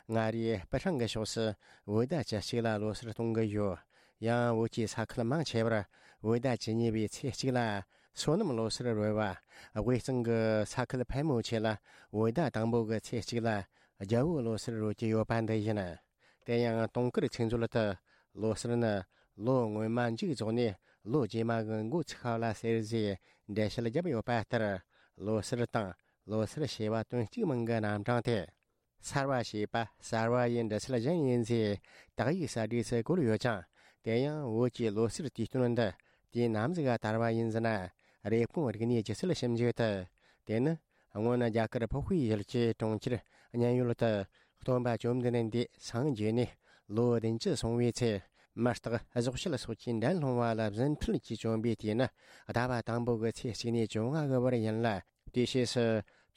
མངའ་རིས་སྤུ་ཧྲེང་གི་ཕྱོགས་སུ་བོད་ཟླ་བཅུ་གཅིག་ལ་ལོ་སར་གཏོང་གི་ཡོད། ཡང་བོད་ཀྱི་ས་ཁུལ་མང་ཆེ་བར་བོད་ཟླ་བཅུ་གཉིས་པའི་ཚེས་གཅིག་ལ་སོ་ནམ་ལོ་སར་རོལ་བ། དབུས་གཙང་གི་ས་ཁུལ་ཕལ་མོ་ཆེ་ལ་བོད་ཟླ་དང་པོ་གི་ཚེས་གཅིག་ལ་རྒྱལ་པོ་ལོ་སར་རོལ་གྱི་ཡོད་པ་འདི་ཡིན། དེ་ཡང་དུང་དཀར་ཚིག་མཛོད་དུ་ལོ་སར་ནི་ལོ་སྔོན་མ་མཇུག་རྫོགས་ནས་ལོ་རྗེས་མ་གི་འགོ་ཚུགས་པ་ལ་ཟེར་ཞེས་འགྲེལ་བཤད་བརྒྱབ་ཡོད་པ་ལྟར། ལོ་སར་དང་ལོ་སར་ཞེས་པ་དོན་གཅིག་མིང་གི་རྣམ་གྲངས་དེ། སར་བ་ཞེས་པ་གསར་བ་ཡི་འབྲི་ཚུལ་གཞན་ཡིན་ཞེས་དག་ཡིག་གསར་བསྒྲིགས་སུ་བཀོད་ཡོད་ཀྱང་། དེ་ཡང་བོད་ཀྱི་ལོ་སར་དུས་སྟོན་འདི་དུས་ནམ་ཞིག་ག་དར་བ་ཡིན་ཟེར་ན། རེབ་གོང་རིག་གནས་སྒྱུ་རྩལ་ཞིབ་འཇུག་ཏུ། དེ་ནི་སྔོན་རྒྱ་གར་ཕོ་ཧུའེ་ཡུལ་གྱི་གྲོང་ཁྱེར་ཉན་ཡུལ་དུ་སྟོན་པ་བཅོམ་ལྡན་འདས་སངས་རྒྱས་ནས་ལོ་བདུན་ཅུ་སོང་བའི་ཚེ། མི་རྟག་གཟུགས་ཞལ་སོགས་ཀྱི་འགྲན་སློང་བ་ལ་བཟོད་ཐུལ་གྱིས་བཅོམ་པའི་དུས་ནི་ཟླ་བ་དང་པོ་གི་ཚེས་གཅིག་ནས་བཅོ་ལྔ་གི་བར་ཡིན་ལ། དེའི་ཕྱིས་སུ་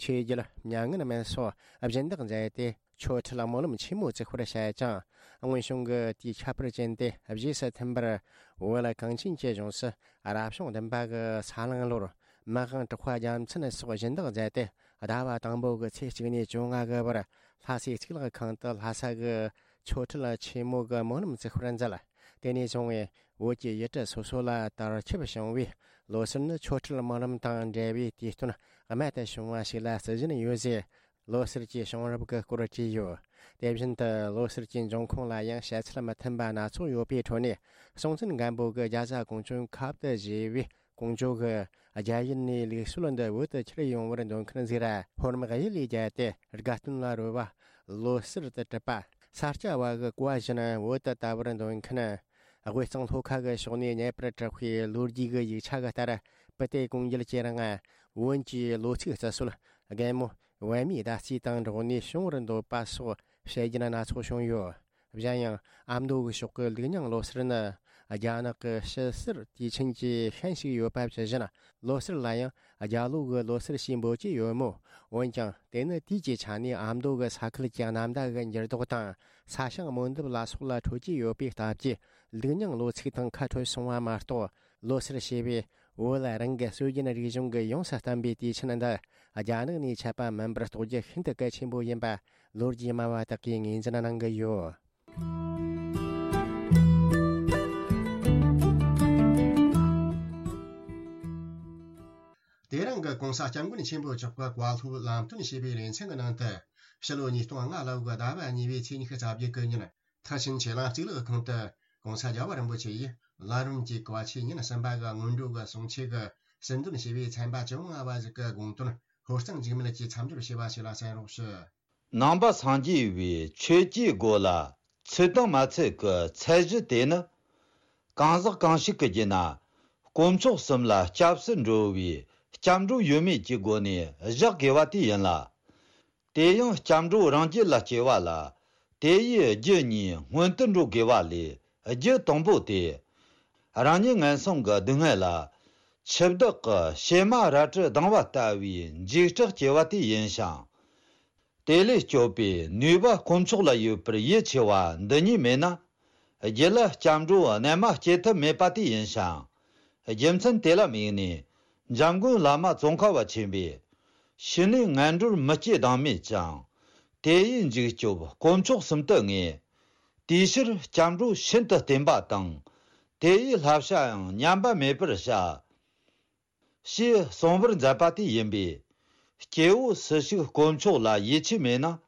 ཆོས་བརྒྱུད་མྱ་ངན་མེད་སོགས་སྦྱིན་བདག་མཛད་དེ། ཆོ་འཕྲུལ་སྨོན་ལམ་ཆེན་མོ་བཙུགས་པར་བྱས་ཀྱང་། སྔོན་བྱུང་གི་དུས་ཁྱད་པར་ཅན་དེ་རྗེས་སུ་མཐུན་པར། བོད་གངས་ཅན་གྱི་ལྗོངས་སུ་རབ་བྱུང་བདུན་པ་གི་ས་གླང་ལོར། མི་དབང་གྲགས་པ་རྒྱལ་མཚན་སོགས་སྦྱིན་བདག་མཛད་དེ། ཟླ་བ་དང་པོ་གི་ཚེས་གཅིག་ནས་བཅོ་ལྔ་གི་བར་ལྷ་སའི་གཙུག་ལག་ཁང་དུ་ལྷ་ས་གི་ཆོ་འཕྲུལ་ཆེན་མོ་གི་སྨོན་ལམ་བཙུགས་པར་མཛད། དེ་ནས་བཟུང་བས་བོད་ཀྱི་ཡུལ་གྲུ་སོ་སོ་ལ་དར་ཁྱབ་བྱུང་བས། ལོ་སར་ནི་ཆོ་འཕྲུལ་སྨོན་ལམ་དང་འབྲེལ་བའི་དུས་སྟོན་རྨད་དུ་བྱུང་བ་ཞིག་ལ་བརྩི་བཞིན་ཡོད་ཟེར། ལོ་སར་གྱི་བྱུང་རབས་ཀྱི་སྐོར་བྲིས་ཡོད། དེ་བཞིན་དུ་ལོ་སར་གྱི་འབྱུང་ཁུངས་ལ་ཡང་བཤད་ཚུལ་མི་མཐུན་པ་སྣ་ཚོགས་ཡོད་པའི་ཁྲོད་ནས། སྲོང་བཙན་སྒམ་པོ་གིས་རྒྱ་བཟའ་ཀོང་ཇོའི་ཁབ་ཏུ་བཞེས་པའི་ཀོང་ཇོ་གིས་རྒྱ་ཡུལ་ནས་ལུགས་སྲོལ་འདི་བོད་དུ་ཁྱེར་ཡོང་བར་འདོད་མཁན་ཟིག་ར། ཧོར་དམག་གཡུལ་ལས་བརྒྱལ་ཏེ་དགའ་སྟོན་ལ་རོལ་བ་ལོ་སར་དུ་གྲུབ་པ། ས་སྐྱ་བ་གིས་བཀའ་བཞིན་བོད་དུ་དར་བར་འདོད་མཁན། དབུས་གཙང་ལྷོ་ཁ་གི་ཕྱོགས་ནས་རྙེད་པར་གྲགས་པའི་ལོ་རྒྱུས་ཀྱི་ཡིག་ཆ་གི་ལྟར། བུ་དེ་ཀོང་རྒྱལ་གྱི་རིང་བོན་གྱི་ལོ་ཚིགས་རྩི་སྲོལ་རྒན་མོ་བན་མའི་ཟླ་རྩིས་དང་འགྲོགས་ནས་བྱུང་བར་འདོད་པ་སོགས་བཤད་རྒྱུན་སྣ་ཚོགས་བྱུང་ཡོད། གཞན་ཡང་ཨ་མདོ་གི་ཕྱོགས་ཀྱི་ལུགས་རྙིང་ལོ་སར་ནི་རྒྱ་ནག་གི་ཕྱི་སར་དུས་ཆེན་གྱི་ཤན་ཞིག་ཡོད་པ་ཇི་བཞིན། ལོ་སར་ལ་ཡང་རྒྱ་ལོ་གི་ལོ་སར་ཞེས་འབོད་ཀྱི་ཡོད་མོད། འོན་ཀྱང་དེ་ནི་དུས་ཀྱི་ཆ་ནས་ཨ་མདོ་གི་ས་ཁུལ་གྱི་གནམ་བདག་གི་འགྱུར་ལྡོག་དང་ས་ཞིང་རྨོ་འདེབས་ལ་སོགས་ལ་འཕྲོད་ཀྱི་ཡོད་པའི་སྟབས་ཀྱིས། ལུགས་རྙིང་ལོ་ཚིགས་དང་ཁ་འཕྲོད་སོང་བ་མ་གཏོགས། ལོ་སར་ཞེས་པའི་བོད་ལ་རང་གི་སྲོལ་རྒྱུན་རིག་གཞུང་གི་ཡོངས་སུ་བསྟན་པའི་དུས་ཆེན་འདི་རྒྱ་ནག་ནས་ཆད་པ་མིན་པར་རྟོགས་རྒྱུ་ཤིན་ཏུ་གལ་ཆེན་པོ་ཡིན་པ་ལོ་རྒྱུས་སྨྲ་བ་དག་གིས་ངོས་འཛིན་གནང་གི་ཡོད། དེ་རིང་གི་༸གོང་ས་༸སྐྱབས་མགོན་ཆེན་པོ་མཆོག་གི་བཀའ་སློབ་ལམ་སྟོན་ཞེས་པའི་ལེ་ཚན་གྱི་ནང་དུ། ཕྱི་ལོ་ཉིས་སྟོང་ལྔ་ལོ་གི་ཟླ་བ་གཉིས་པའི་ཚེས་ཉི་ཤུ་རྩ་བརྒྱད་གི་ཉིན། མཐར་ཕྱིན་ཆོས་གླིང་གཙུག་ལག་ཁང་དུ་༸གོང་ས་རྒྱལ་བ་རིན་པོ་ཆེ་ཡིས་ལམ་རིམ་གྱི་བཀའ་ཆོས་ཉིན་གསུམ་པ་གི་སྔོན་འགྲོ་གི་གསུང་ཆོས་ཀྱི་ཟིན་དོན་ཞེས་པའི་ཚན་པ་བཅོ་ལྔ་བ་ཞིག་གི་དགོངས་དོན་ཧོར་གཙང་འཇིགས་མེད་ཀྱིས་མཚམས་སྦྱོར་བྱས་པ་ཞིག་ལ་གསན་རོགས་ཞུ། ནང་པ་སངས་རྒྱས་པའི་ཆོས་ཀྱི་སྒོ་ལ་ཚུད་དང་མ་ཚུད་ཀྱི་ཚད་གཞི་དེ་ནི། གང་ཟག་གང་ཞིག་གི་རྒྱུད་ན་དཀོན་མཆོག་གསུམ་ལ་སྐྱབས་སུ་འགྲོ་བའི་སྐྱབས་འགྲོ་ཡོད་མེད་ཀྱི་སྒོ་ནས་བཞག་དགོས་པ་དེ་ཡིན་ལ། དེ་ཡང་སྐྱབས་འགྲོ་རང་རྒྱུད་ལ་སྐྱེ་བ་ལ་དེ་ཡི་རྒྱུ་གཉིས་སྔོན་དུ་འགྲོ་དགོས་པ་ལས་རྒྱུ་དང་པོ་དེ། རང་ཉིད་ངན་སོང་གི་སྡུག་བསྔལ་ལ་འཆི་བདག་གི་བྱེ་མ་རལ་གྲི་ལྡང་བ་ལྟ་བུའི་འཇིགས་སྐྲག་སྐྱེ་བ་དེ་ཡིན་ཞིང་། དེ་ལས་སྐྱོབ་པའི་ནུས་པ་དཀོན་མཆོག་ལ་ཡོད་པར་ཡིད་ཆེས་པ་འདི་གཉིས་མེད་ན། རྒྱུད་ལ་སྐྱབས་འགྲོ་རྣལ་མ་སྐྱེ་ཐབས་མེད་པ་དེ་ཡིན་ཞིང་། རྒྱུ་མཚན་དེ་ལ་དམིགས་ནས་འཇམ་མགོན་བླ་མ་ཙོང་ཁ་པ་ཆེན་པོས། ཕྱི་ནས་ངན་འགྲོར་མི་སྐྱེ་བདག་མེད་ཅིང་། དེ་ཡི་འཇིགས་སྐྱོབ་དཀོན་མཆོག་གསུམ་དུ་ངེས། དེའི་ཕྱིར་སྐྱབས་འགྲོ་ཤིན་ཏུ་བརྟན་པ་དང་། དེ་ཡི་བསླབ་བྱ་ཡང་ཉམས་པ་མེད་པར་བྱ། ཞེས་གསུངས་པར་མཛད་པ་དེ་ཡིན་པས། སྐྱེ་བོ་སུ་ཞིག་དཀོན་མཆོག་ལ་ཡིད་ཆེས་མེད་ན།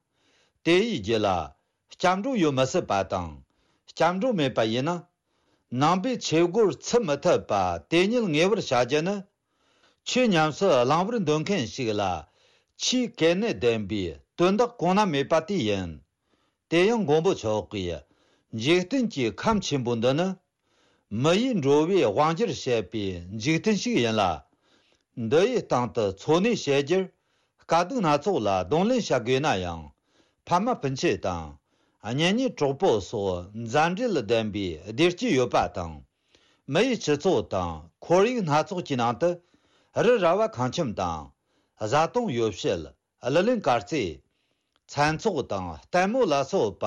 དེ་ཡི་རྒྱུད་ལ་སྐྱབས་འགྲོ་ཡོད་མི་སྲིད་པ་དང་། སྐྱབས་འགྲོ་མེད་པ་ཡིན་ན། ནང་པའི་ཆོས་སྒོར་ཚུད་མི་ཐུབ་པ་དེ་ཉིད་ངེས་པར་བྱ་རྒྱུ་ནི། ཆོས་ཉམས་སུ་བླང་བར་འདོད་མཁན་ཞིག་ལ་ཆོས་གལ་གནད་ལྡན་པའི་དོན་དག་གོང་ན་མེད་པ་དེ་ཡིན། དེ་ཡང་མགོན་པོ་མཆོག་གིས་འཇིག་རྟེན་གྱི་ཁམས་ཆེན་པོ་འདི་ནི། མི་ཡི་འགྲོ་བའི་དབང་སྒྱུར་བྱེད་པའི་འཇིག་རྟེན་ཞིག་ཡིན་ལ། འདི་ཡི་སྟེང་དུ་འཚོ་གནས་བྱེད་རྒྱུར་དཀའ་སྡུག་སྣ་ཚོགས་ལ་གདོང་ལེན་བྱ་དགོས་ན་ཡང་། ཕ་མ་སྤུན་མཆེད་དང་། གཉེན་ཉེ་གྲོགས་པོ་སོགས་མཛའ་འབྲེལ་ལྡན་པའི་བདེ་སྐྱིད་ཡོད་པ་དང་། མི་ཡི་སྤྱི་ཚོགས་དང་ཁོར་ཡུག་སྣ་ཚོགས་ཀྱི་ནང་དུ་རི་ར་བ་ཁང་ཁྱིམ་དང་། བཟའ་བཏུང་ཡོ་བྱད། གླུ་ལེན་དཀར་རྩེ། ཚན་ཚོགས་དང་ལྟད་མོ་ལ་སོགས་པ།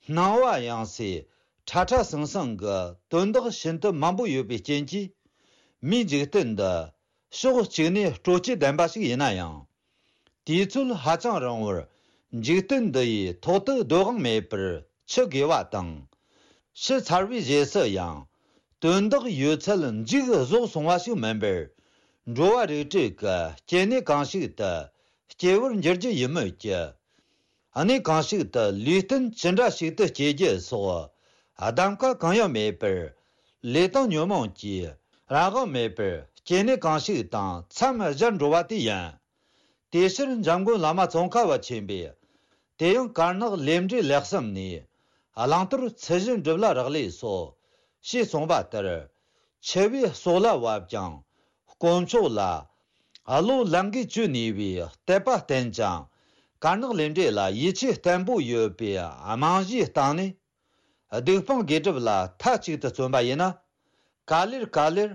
སྣང་བ་ཡངས་སའི་ཁྲ་ཁྲ་ཟང་ཟང་གི་དོན་དག་ཤིན་ཏུ་མང་པོ་ཡོད་པའི་རྐྱེན་གྱིས། མིའི་འཇིག་རྟེན་འདི་ཕྱོགས་གཅིག་ནས་སྤྲོ་སྐྱིད་ལྡན་པ་ཞིག་ཡིན་ན་ཡང་། དུས་ཚོད་ཧ་ཅང་རིང་བར་འཇིག་རྟེན་འདི་ཡི་ཐོག་ཏུ་སྡོད་དབང་མེད་པར་འཆི་དགོས་པ་དང་། ཤི་ཚར་བའི་རྗེས་སུ་ཡང་དོན་དག་ཡོད་ཚད་མཇུག་རྫོགས་སོང་བ་ཞིག་མིན་པར། འགྲོ་བ་རིགས་དྲུག་གི་སྐྱེ་གནས་གང་ཞིག་ཏུ་སྐྱེ་བར་འགྱུར་རྒྱུ་ཡིན་མོད་ཀྱི། གནས་གང་ཞིག་ཏུ་ལུས་རྟེན་ཅི་འདྲ་ཞིག་ཏུ་སྐྱེ་རྒྱུ་སོགས་གདམ་ཀ་གང་ཡང་མེད་པར། ལུས་དང་ཉོན་མོངས་ཀྱིས་རང་དབང་མེད་པར་སྐྱེ་གནས་གང་ཞིག་དང་མཚམས་སྦྱར་འགྲོ་བ་དེ་ཡིན། དེའི་ཕྱིར་འཇམ་མགོན་བླ་མ་ཙོང་ཁ་པ་ཆེན་པོས། དེ་ཡང་དཀར་ནག་ལས་འབྲས་ལེགས་བསམ་ནས། བླང་དོར་ཚུལ་བཞིན་སྒྲུབ་ལ་རག་ལས་སོ། ཞེས་གསུངས་པ་ལྟར། འཆི་བའི་སྲོག་ལ་བབ་ཀྱང་། དཀོན་མཆོག་ལ། བློ་ལང་གིས་བཅོས་ནུས་པའི་དད་པ་བརྟན་ཅིང་། དཀར་ནག་ལས་འབྲས་ལ་ཡིད་ཆེས་བརྟན་པོ་ཡོད་པའི་རྨང་གཞིའི་སྟེང་ནས། སྡིག་སྤོང་དགེ་སྒྲུབ་ལ་མཐའ་གཅིག་ཏུ་བརྩོན་པ་ཡིན་ན། ག་ལེར་ག་ལེར་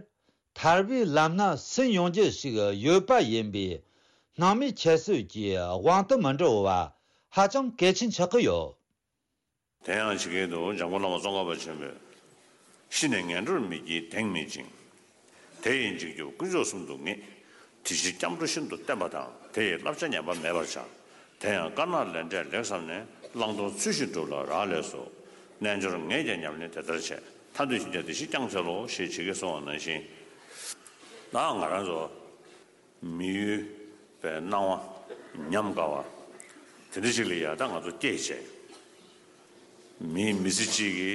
ཐར་པའི་ལམ་སྣ་ཟིན་ཡོང་རྒྱུ་ཞིག་ཡོད་པ་ཡིན་པས། སྣང་མེད་ཁྱད་གསོད་ཀྱི་དབང་དུ་མི་འགྲོ་བ་ཧ་ཅང་གལ་ཆེན་ཆགས་ཀྱི་ཡོད། དེ་ཡང་ཇི་སྐད་དུ། འཇམ་མགོན་བླ་མ་ཙོང་ཁ་པ་ཆེན་པོས། ཤི་ནས་ངན་འགྲོར་མི་སྐྱེའི་གདེང་མེད་ཅིང་། དེ་ཡི་འཇིགས་སྐྱོབ་དཀོན་མཆོག་གསུམ་དུ་ངེས། དེ་ཕྱིར་སྐྱབས་འགྲོ་ཤིན་ཏུ་བརྟན་པ་དང་། དེ་ཡི་བསླབ་བྱ་ཉམས་པ་མེད་པར་བྱ། དེ་ཡང་དཀར་ནག་ལས་འབྲས་ལེགས་བསམས་ནས། བླང་དོར་ཚུལ་བཞིན་སྒྲུབ་ལ་རག་ལས་སོ། རྣལ་འབྱོར་ངས་ཀྱང་ཉམས་ལེན་དེ་ལྟར་བྱས། ཐར་འདོད་ཞེན་ཆགས་དེ་བཞི་བསྐྱངས་འཚལ་ལོ་ཞེས་ཇི་སྐད་གསུངས་པ་ནང་བཞིན། ད་ང་རང་ཚོ་མི་ཡུལ་པའི་སྣང་བ་ཉམས་དགའ་བ་དེ་འདྲ་ཞིག་ལ་ཡ་ད་ང་ཚོ་སྐྱེས་བྱས། མི་མི་ཚེ་གཅིག་གི་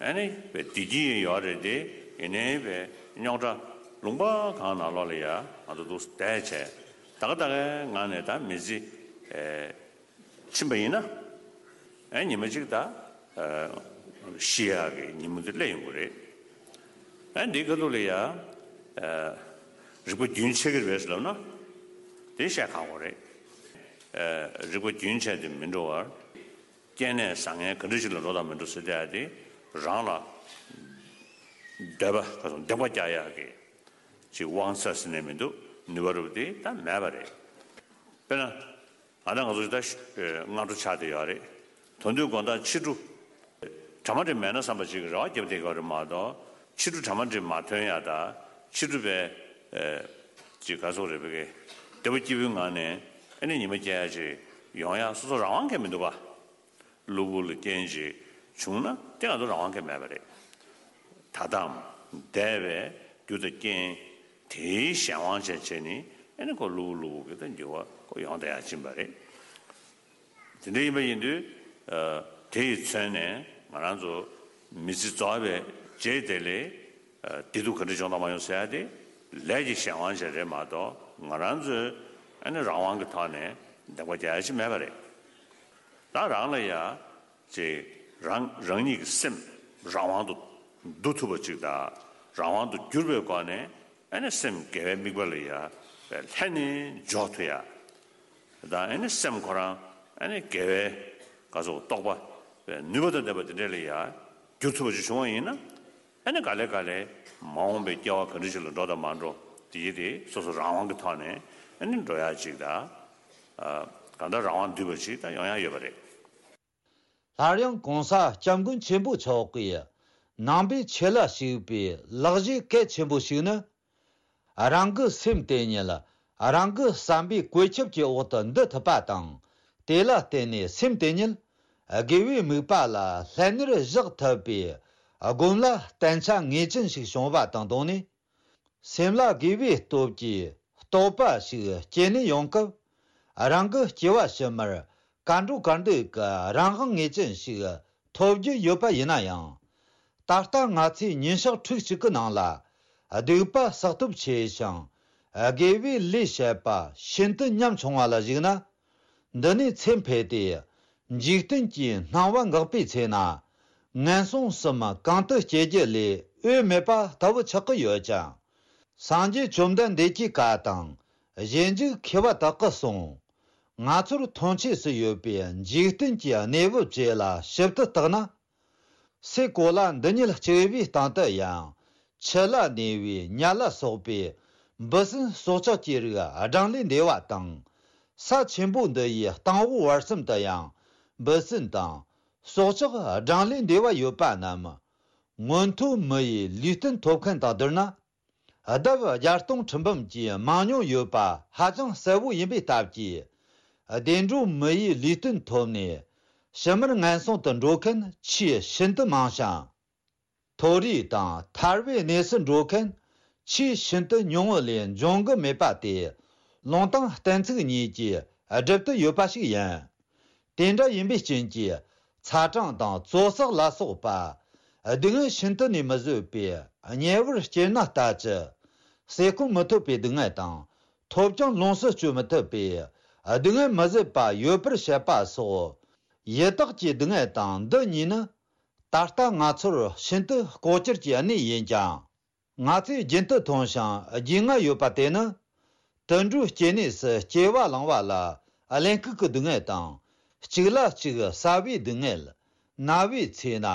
ཨ་ནི་བའི་བདེ་སྐྱིད་ཡོད་རེད་དེ། ཡིན་ནའི་བའི་རྙོག་དྲ་ལུང་པ་གང་ནང་ལོགས་ལ་ཡ་ང་ཚོ་འདུག་བསྡད་བྱས། ད་ག་ད་གའི་ངང་ནས་ད་མི་ཚེ་ཨེ་ཕྱིན་པ་ཡིན་ན། ཨེ་ཉི་མ་གཅིག་ད་ཨེ་ཤི་ཡག་གི་ཉིན་མོ་དེ་སླེབས་ཡོང་གི་རེད། ཨེ་འདིའི་ཁ་ཐུག་ལ་ཡ་ཨེ་རིག་པ་རྒྱུན་ཆད་ཀྱི་རེད་ཟེར་ལབ་ན་དེ་བཤད་ཁག་པོ་རེད། ཨེ་རིག་པ་རྒྱུན་ཆད་དེ་མི་འགྲོ་བར། སྐྱེ་གནས་བཟང་ངན་ག་འདྲ་ཞིག་ལ་འགྲོ་དང་མི་འགྲོ་ཟེར་དེ་ཡ་དེ་རང་ལ་འདོད་པ་ག་ཚོད་འདེགས་པ་རྒྱག་ཡག་གི་ཅིག་དབང་ཚད་ཟེར་ནས་མི་འདུག་ནུས་པ་རུ་དེ་ད་མེད་པ་རེད། དཔེར་ན། ཨ་ད་ང་ཚོ་ད་སྔ་དྲོ་ཆགས་བསྡད་ཡོད་རེད། དོན་དུ་དགོང་དག་ཕྱི་དྲོ། གྲ་མ་འགྲིག་མེད་ན་བསམ་པ་ཅིག་རེ་བ་བརྒྱབ་བསྡད་ཡོད་རེད་མ་གཏོགས། ཕྱི་དྲོ་གྲ་མ་འགྲིག་མ་ཐོན་ཡ་ད། ཕྱི་དྲོ་བའི་ཅིག་ག་ཚོད་རེད་པས། བདེ་པོ་སྐྱིད་པོའི་ངང་ནས་ཨ་ནི་ཉི་མ་སྐྱེལ་ཡ་ཅིག་ཡོང་ཡ་སོ་སོ་རང་དབང་གིས་མི་འདུག་ག་གློ་བུར་ལ་རྐྱེན་ཅིག་བྱུང་ན་དེ་ང་ཚོ་རང་དབང་གིས་མེད་པ་རེད། ད་ལྟའམ་འདས་པའི་རྒྱུ་དང་རྐྱེན་དེའི་གཞན་དབང་བྱས་བྱས་ནས་ཨ་ནི་ཁོ་གློ་བུར་གློ་བུར་གྱི་ད་འགྱུར་བ་ཁོ་ཡོང་བསྡད་ཡ་ཕྱིན་པ་རེད། དེ་འདྲ་ཡིན་པ་ཡིན་དུས། ཨ། དེ་ཡི་མཚོན་ནས་ང་རང་ཚོ་མི་ཚེ་རྫོགས་པའི་རྗེས་དེ་ལས། ཨ། བདེ་སྡུག་ག་འདྲ་བྱུང་དང་མ་བྱུང་ཟེར་ཡ་དེ་ལས་ཀྱི་གཞན་དབང་ཅིག་རེད་མ་གཏོགས་ང་རང་ཚོའི་ཨ་ནི་རང་དབང་གི་ཐོག་ནས་འདེགས་པ་རྒྱག་ཡ་ཅིག་མེད་པ་རེད། ད་རང་ལ་ཡ། ཅིག་རང་རང་ཉིད་ཀྱི་སེམས་རང་དབང་དུ་བསྡུ་ཐུབ་པ་ཅིག་དང་རང་དབང་དུ་གྱུར་པའི་སྒོ་ནས་ཨ་ནི་སེམས་དགེ་བའི་དམིགས་པ་ལ་ཡ་ལྷན་ནེ་འཇོག་ཐུབ་ཡ། དང་ཨ་ནི་སེམས་ཁོ་རང་ཨ་ནི་དགེ་བའི་ག་ཚོད་རྟོགས་པ་ནུས་པ་དང་ལྡན་པ་དེ་འདྲ་ལ་ཡ་འགྱུར་ཐུབ་པ་ཅིག་བྱུང་བ་ཡིན་ན། ཨ་ནི་ག་ལེ་ག་ལེ་མ་འོངས་པའི་སྐྱེ་བ་ག་འདྲ་ཞིག་ལ་འགྲོ་དང་མ་འགྲོ་དེ་ཡི་དེ་སོ་སོ་རང་དབང་གི་ཐོག་ནས་ཨ་ནི་འགྲོ་ཡ་ཅིག་དང་། ཨ། གང་ལྟར་རང་དབང་འདུས་པ་ཅིག་ད་ཡོང་ཡ་ཡོད་པ་རེད། སླར་ཡང་གོང་ས་སྐྱབས་མགོན་ཆེན་པོ་མཆོག་གིས་ནང་པའི་ཆོས་ལ་ཞུགས་པའི་ལེགས་བྱས་གལ་ཆེན་པོ་ཞིག་ནི། རང་གི་སེམས་དེ་ཉིད་རང་གི་བསམ་པའི་བཀོད་ཁྱབ་ཀྱི་འོག་ཏུ་འདུ་ཐུབ་པ་དང་། དེ་ལ་བརྟེན་ནས་སེམས་དེ་ཉིད་དགེ་བའི་དམིགས་པ་ལ་ལྷན་ནེར་བཞག་ཐུབ་པའི་སྒོམ་ལ་བརྟན་ཆ་ངེས་ཅན་ཞིག་བྱུང་བ་དང་བསྡོངས་ནས། སེམས་ལ་དགེ་བའི་སྟོབས་ཀྱི་རྟོགས་པ་ཞིག་སྐྱེས་ནས་ཡོང་སྐབས། རང་གི་སྐྱེ་བ་ཕྱི་མར་གར་འགྲོ་གར་འདོད་ཀྱི་རང་དབང་ངེས་ཅན་ཞིག་ཐོབ་རྒྱུ་ཡོད་པ་ཡིན་ན་ཡང་། ད་ལྟ་ང་ཚོས་ཉིན་ཞག་ཕྲུགས་གཅིག་གི་ནང་ལ་སྡིག་པ་བསགས་སྟོབས་ཆེ་ཞིང་། དགེ་བའི་ལས་བྱེད་པ་ཤིན་ཏུ་ཉམ་ཆུང་བ་ལ་གཞིགས་ན། འདི་ནས་ཚེ་འཕོས་ཏེ། འཇིག་རྟེན་གྱི་སྣང་བ་འགག་པའི་ཚེ་ན། ངན་སོང་གསུམ་གང་དུ་སྐྱེ་རྒྱུ་ལས་འོས་མེད་པ་ལྟ་བུ་ཆགས་ཀྱི་ཡོད་ཅིང་། སངས་རྒྱས་བཅོམ་ལྡན་འདས་ཀྱི་བཀའ་དང་། གཞན་འཇུག་མཁས་པ་དག་གིས་གསུངས། ང་ཚོར་མཐོང་ཆོས་སུ་ཡོད་པའི་འཇིག་རྟེན་གྱི་གནས་བབ་བཅས་ལ་ཞིབ་ཏུ་བརྟགས་ན། སའི་གོ་ལ་འདི་ཉིད་གཅིག་པུའི་སྟེང་དུ་ཡང་། ཆུ་ལ་གནས་པའི་ཉ་ལ་སོགས་པའི་འབུ་སྲིན་སྲོག་ཆགས་ཀྱི་རིགས་གྲངས་ལས་འདས་པ་དང་། ས་ཆེན་པོ་འདི་ཡི་སྟེང་འོག་བར་གསུམ་དུ་ཡང་འབུ་སྲིན་དང་སྲོག་ཆགས་གྲངས་ལས་འདས་པ་ཡོད་པ་རྣམས། མངོན་མཐོ་མི་ཡི་ལུས་རྟེན་ཐོབ་མཁན་དང་བསྡུར་ན། ལྡབ་བརྒྱ་སྟོང་ཁྲི་འབུམ་གྱིས་མང་ཉུང་ཡོད་པ་ཧ་ཅང་གསལ་བོ་ཡིན་པའི་སྟབས་ཀྱིས། བདེ་འགྲོ་མི་ཡི་ལུས་རྟེན་ཐོབ་ནས་ཕྱི་མར་ངན་སོང་དུ་འགྲོ་མཁན་ཆེས་ཤིན་ཏུ་མང་ཞིང་། མཐོ་རིས་དང་ཐར་པའི་གནས་སུ་འགྲོ་མཁན་ཆེས་ཤིན་ཏུ་ཉུང་ངུ་ལས་འབྱུང་གི་མེད་པ་དེ། ལུང་དང་གཏན་ཚིགས་གཉིས་ཀྱིས་སྒྲུབ་ཏུ་ཡོད་པ་ཞིག་ཡིན། དེ་འདྲ་ཡིན་པའི་རྐྱེན་གྱིས་ཚ་གྲང་དང་བཙོག་བསགས་ལ་སོགས་པ་སྡུག་བསྔལ་ཤིན་ཏུ་ནས་མི་བཟོད་པའི་དམྱལ་བར་སྐྱེས་ན་ལྟ་ཅི། ཟས་སྐོམ་མི་ཐོབ་པའི་སྡུག་བསྔལ་དང་ཐོབ་ཀྱང་ལོངས་སུ་སྤྱོད་མི་ཐུབ་པའི་སྡུག་བསྔལ་མི་བཟད་པ་ཡོད་པར་བཤད་པ་སོགས་ཡི་དྭགས་ཀྱི་སྡུག་བསྔལ་དང་འདི་གཉིས་ནི་ད་ལྟ་ང་ཚོར་ཤིན་ཏུ་ལྐོག་གྱུར་གྱི་གནས་ཡིན་ཀྱང་། ང་ཚོས་རྒྱུན་དུ་མཐོང་ཞིང་རྒྱུས་མངའ་ཡོད་པ་དེ་ནི། དུད་འགྲོའི་སྐྱེ་གནས་སུ་སྐྱེ་བ་བླངས་པ་ལ་གླེན་ལྐུགས་ཀྱི་སྡུག་བསྔལ་དང་། གཅིག་ལ་གཅིག་ཟ་བའི་སྡུག་བསྔལ། ན་བའི་ཚེ་ན་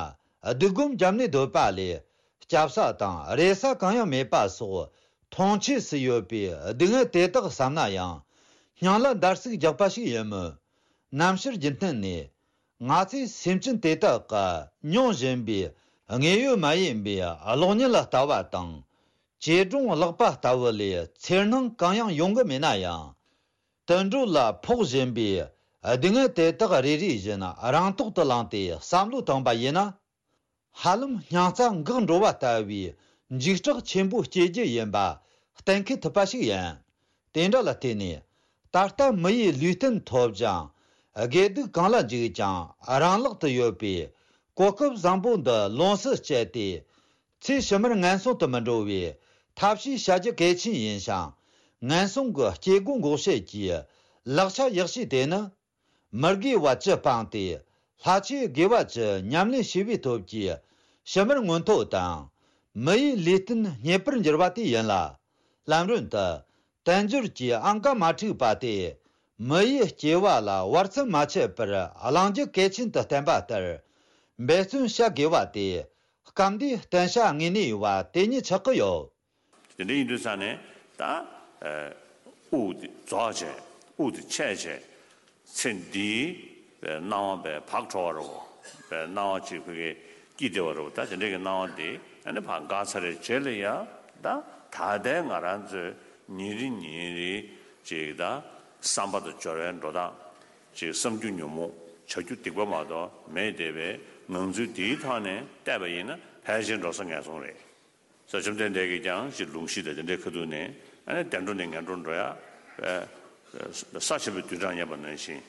སྡིགས་སྒོམ་བརྒྱབ་ནས་སྡོད་པ་ལས་སྐྱབ་ས་དང་རེ་ས་གང་ཡང་མེད་པ་སོགས་མཐོང་ཆོས་སུ་ཡོད་པའི་སྡུག་བསྔལ་དེ་དག་བསམ་ན་ཡང་སྙིང་ལ་འདར་སིག་རྒྱག་པ་ཞིག་ཡིན་མོད། ནམ་ཕྱིར་རྒྱུན་མཐུད་ནས། ང་ཚོས་སེམས་ཅན་དེ་དག་གི་མྱོང་བཞིན་པའི་དངོས་ཡོད་མ་ཡིན་པའི་གློག་བརྙན་ལ་ལྟ་བ་དང་། བྱེ་སྒྲུང་ཀློག་པ་ལྟ་བུ་ལས་འཚེར་སྣང་གང་ཡང་ཡོང་གི་མེད་ན་ཡང་། དུད་འགྲོ་ལ་ཕོག་བཞིན་པའི་སྡུག་བསྔལ་དེ་དག་རེ་རེ་བཞིན་རང་ཐོག་ཏུ་བླངས་ཏེ་བསམ་བློ་བཏང་པ་ཡིན་ན། ཧ་ལམ་སྙིང་རྩ་འགག་འགྲོ་བ་ལྟ་བུའི་འཇིགས་སྐྲག་ཆེན་པོ་སྐྱེ་རྒྱུ་ཡིན་པ་གཏན་འཁེལ་ཐུབ་པ་ཞིག་ཡིན། དེ་འདྲ་ལ་བརྟེན་ནས། ད་ལྟ་མི་ཡི་ལུས་རྟེན་ཐོབ་ཅིང་། དགེ་སྡིག་གང་ལ་འཇིགས་ཀྱང་རང་ལག་ཏུ་ཡོད་པའི་གོ་སྐབས་བཟང་པོ་འདི་ལོངས་སུ་སྤྱད་དེ། ཚེ་ཕྱི་མར་ངན་སོང་དུ་མི་འགྲོ་བའི་ཐབས་ཤེས་བྱ་རྒྱུ་གལ་ཆེན་ཡིན་ཞིང་། ངན་སོང་གི་སྐྱེ་སྒོ་འགོག་བྱེད་ཀྱི་ལག་ཆ་ཡག་ཤོས་དེ་ནི། མི་དགེ་བ་བཅུ་སྤངས་ཏེ། ལྷ་ཆོས་དགེ་བ་བཅུ་ཉམས་ལེན་བྱས་པའི་སྟོབས་ཀྱིས་ཕྱི་མར་མངོན་མཐོ་དང་། མི་ཡི་ལུས་རྟེན་རྙེད་པར་འགྱུར་བ་དེ་ཡིན་ལ། ལམ་རིམ་དུ་དལ་འབྱོར་གྱི་ཨང་ཀ་མ་འཁྲུགས་པ་དེ། མི་ཡི་སྐྱེ་བ་ལ་བར་མཚམས་མ་ཆད་པར་བླང་རྒྱུ་གལ་ཆེན་དུ་བསྟན་པ་ལྟར། འབད་བརྩོན་བྱ་དགོས་པ་དེ་སྐབས་འདིའི་བསྟན་བྱ་དངོས་གནས་པ་དེ་ཉིད་ཆགས་ཀྱི་ཡོད། དེ་འདྲ་ཡིན་དུས་ཙང་ནས་ད་དབུགས་དེ་རྫོགས་བྱས། དབུགས་དེ་ཆད་བྱས། ཚེ་འདིའི་སྣང་བ་བས་བག་དྲོ་བ་རོ། བས་སྣང་བ་གཅིག་ཕ་གིའི་སྐྱིད་བདེ་བ་རོ། ད་དེ་འདྲའི་གི་སྣང་བ་དེ་ཨ་ནི་ཕར་འགག་ཚར་བའི་རྗེས་ལ་ཡ། ད་ད་ལྟའི་ང་རང་ཚོའི་ཉིན་རེ་ཉིན་རེ་གཅིག་ད་བསམ་པ་དང་སྦྱོར་བའི་འགྲོ་སྟངས་གཅིག་བསམ་རྒྱུ་ཉོན་མོངས། བྱ་རྒྱུ་སྡིག་པ་མ་གཏོགས་མེད་བསྡད་པའི་ངང་ཚུལ་འདིའི་ཐོག་ནས་བལྟས་པ་ཡིན་ན་ཕལ་ཆེར་འགྲོ་ས་ངན་སོང་རེད། ས་བཅོམ་ལྡན་འདས་ཀྱིས་ཀྱང་ཅིག་ལུང་གཞི་དང་དེ་འདྲའི་ཁ་ཐུག་ནས་ཨ་ནི་བདེ་འགྲོ་ནས་ངན་འགྲོར་འགྲོ་ཡ། ས་ཆེན་པོའི་རྡུལ་གྲངས་བསྙེན་པ་ནང་བཞིན།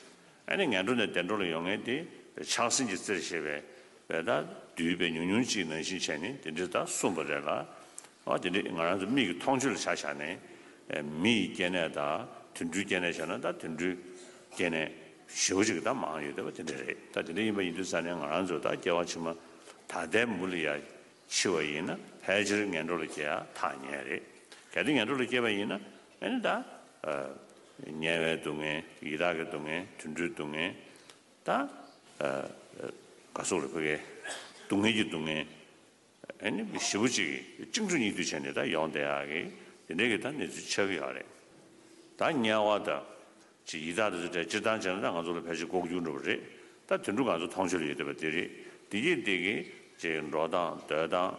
ཨ་ནི་ངན་འགྲོ་ནས་བདེ་འགྲོ་ལ་ཡོང་མཁན་དེ་ཆགས་སེམས་ཀྱི་རྩེར་བཞེས་པའི་བས་ད་བདུད་པའི་ཉུང་ཉུང་ཅིག་ནང་བཞིན་བྱས་ནས་དེ་འདྲའི་ད་གསུངས་པ་རེད་ལ། ཨ་དེ་འདྲའི་ང་རང་ཚོ་མིག་གི་མཐོང་ཆོས་ལ་ཆ་བཞག་ནས། མི་ཡི་སྐྱེ་གནས་དང་དུད་འགྲོའི་སྐྱེ་གནས་བྱས་ན་ད་དུད་འགྲོའི་སྐྱེ་གནས་ཞེ་པོ་ཅིག་ད་མང་ཡོད་བསྡད་པ་དེ་འདྲ་རེད། ད་དེ་འདྲ་ཡིན་པ་ཡིན་དུས་ཙང་ནས་ང་རང་ཚོ་ད་སྐྱེ་བ་ཕྱི་མ་ད་ལྟའི་མུ་ལ་ཡ། འཆི་བ་ཡིན་ན་ཕལ་ཆེར་ངན་འགྲོ་ལ་སྐྱེ་ཡ་ཐག་ཉེ་རེད། གལ་ཏེ་ངན་འགྲོ་ལ་སྐྱེས་པ་ཡིན་ན་ཨ་ནི་ད། དམྱལ་བའི་སྡུག་བསྔལ། ཡི་དྭགས་ཀྱི་སྡུག་བསྔལ། དུད་འགྲོའི་སྡུག་བསྔལ། ད། ག་སོགས་རེད་ཕ་གིའི་སྡུག་བསྔལ་གྱི་སྡུག་བསྔལ། ཨ་ནི་ཞེ་པོ་ཅིག་གཅིག་འཕྲོ་གཉིས་མཐུད་བྱས་ནས་ད་ཡོང་བསྡད་ཡག་གི་དེ་འདྲའི་གི་ད་གནས་ཚུལ་ཆགས་ཀྱི་ཡོད་རེད། ད་དམྱལ་བ་དང་། ཅིག་ཡི་དྭགས་དེ་ཚོ་གྲས་སྤྱིར་བཏང་བྱས་ན་ད་ང་ཚོ་ལ་ཕལ་ཆེར་ལྐོག་གྱུར་འགྲོ་བ་རེད། ད་དུད་འགྲོ་ང་ཚོ་མཐོང་ཆོས་ལ་ཡོད་བསྡད་པ་དེ་རེད། དེ་གྱིས་དེ་གི་ཅིག་འགྲོ་སྟངས་སྡོད་སྟངས།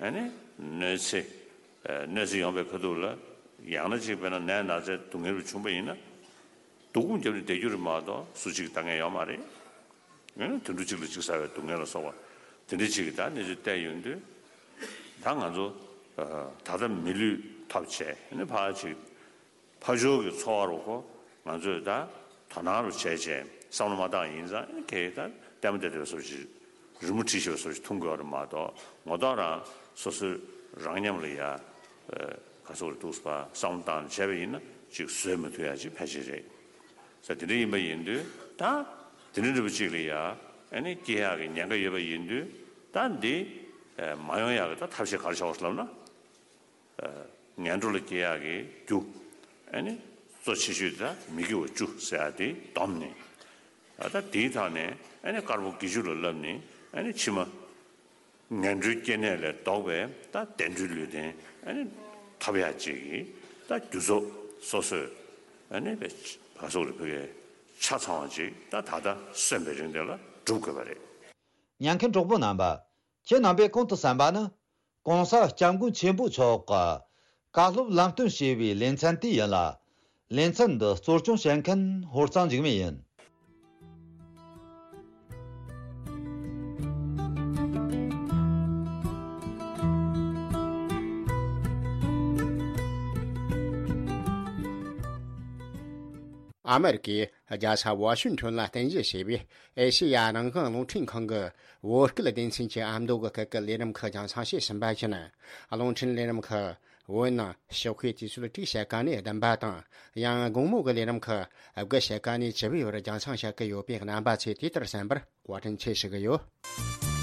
ཨ་ནི་གནོད་འཚེ། གནོད་འཚེ་ཡོང་བའི་ཁ་ཐུག་ལ། ཡང་ན་ཅིག་དཔེར་ན་ནད་ན་ཚའི་སྡུག་བསྔལ་རུ་བྱུང་བ་ཡིན་ན། སྡུག་སྒོམ་བརྒྱབ་ནས་བསྡད་རྒྱུ་རེད་མ་གཏོགས་སུ་གཅིག་ལྟ་མཁན་ཡོད་མ་རེད། ཨ་ནི་དུད་འགྲོ་གཅིག་ལ་གཅིག་ཟ་བའི་སྡུག་བསྔལ་ལ་སོགས་པ། དེ་འདྲ་ཅིག་གི་ད་གནས་ཚུལ་བལྟས་ཡོང་དུས། ད་ང་ཚོ་ད་ལྟ་མི་ལུས་ཐོབ་བྱས་ཨ་ནི་ཕར་ཅིག་ཕར་ཕྱོགས་ཀྱི་འཚོ་བ་རུ་ཁོ་ང་ཚོས་ད་དོ་སྣང་རུ་བྱས་བྱས་བསམ་བློ་མ་བཏང་ཡིན་ཙང་ཨ་ནི་གལ་ད་ལྟད་མོ་བལྟས་བསྡད་པའི་བཟོ་ཞིག་རི་མོ་བྲིས་བཞག་པའི་བཟོ་ཞིག་མཐོང་དགོས་པ་རེད་མ་གཏོགས་ངོ་ཐོག་རང་སོ་སོའི་རང་ཉམས་ལ་ཡ། ག་སོགས་རེ་འདུག་པ་བསམ་བློ་བཏང་བྱས་པ་ཡིན་ན་ཅིག་བཟོད་མི་ཐུབ་ཡ་ཅིག་ཕལ་ཆེར་རེད། ས་དེ་འདྲ་ཡིན་པ་ཡིན་དུས་ད་དེ་འདྲ་འདྲ་པོ་ཅིག་ལ་ཡ་ཨ་ནི་སྐྱེ་ཡག་གི་ཉེན་ཁ་ཡོད་པ་ཡིན་དུས་ད་འདི་མ་ཡོང་ཡག་གི་ད་ཐབས་ཤེས་ག་རེ་བྱ་དགོས་ལབ་ན། ངན་འགྲོ་ལ་སྐྱེ་ཡག་གི་རྒྱུ། ཨ་ནི་གཙོ་ཆེ་ཤོས་དེ་ད་མི་དགེ་བ་བཅུ་ཟེར་ཡག་དེ་བསྡོམས་ནས། ད་དེའི་ཐོག་ནས་ཨ་ནི་དཀར་པོ་དགེ་བཅུ་ལ་བསླབས་ནས་ཨ་ནི་ཕྱི་མ། ངན་འགྲོའི་སྐྱེ་གནས་ལས་ལྡོག་པའི་ད་བདེ་འགྲོའི་ལུས་རྟེན་ཨ་ནི་ཐོབ་ཡག་ཅིག་གི་ད་རྒྱུ་ཚོགས་སོ་སོས་ཨ་ནི་བས་ག་སོགས་རེ་ཕུལ་བའི་ཆ་ཚང་བ་ཅིག་ད་ད་ལྟ་གསོན་པའི་རིང་དེ་ལ་སྒྲུབ་དགོས་པ་རེད། ཉན་མཁན་གྲོགས་པོ་རྣམ་པ། ཁྱེད་རྣམ་པས་གོང་དུ་གསན་པ་ནི། ༸གོང་ས་༸སྐྱབས་མགོན་ཆེན་པོ་མཆོག་གི་བཀའ་སློབ་ལམ་སྟོན་ཞེས་པའི་ལེ་ཚན་དེ་ཡིན་ལ། ལེ་ཚན་འདི་གཙོ་སྐྱོང་བྱེད་མཁན་ཧོར་གཙང་འཇིགས་མེད་ཡིན། ཨ་མེ་རི་ཀའི་རྒྱལ་ས་ཝ་ཤིང་ཊོན་ལ་རྟེན་གཞི་བྱས་པའི་ཨེ་ཤེ་ཡ་རང་དབང་རླུང་འཕྲིན་ཁང་གི་བོད་སྐད་སྡེ་ཚན་གྱི་ཨ་མདོ་གི་སྐད་ཀྱི་ལས་རིམ་ཁག་རྒྱང་སྲིང་བྱེད་བཞིན་པ་ཡིན། རླུང་འཕྲིན་ལས་རིམ་ཁག་བོད་ནང་ཞོགས་ཀའི་དུས་ཚོད་དྲུག་ཕྱེད་ཀ་ནས་བདུན་པ་དང་། ཡང་དགོང་མོ་གི་ལས་རིམ་ཁག་དགུ་ཕྱེད་ཀ་ནས་བཅུ་པའི་བར་རྒྱང་སྲིང་བྱེད་ཀྱི་ཡོད་པས་རྣམ་པ་ཚོས་དེ་ལྟར་གསན་པར་བཀའ་དྲིན་ཆེ་ཞུ་གི་ཡོད།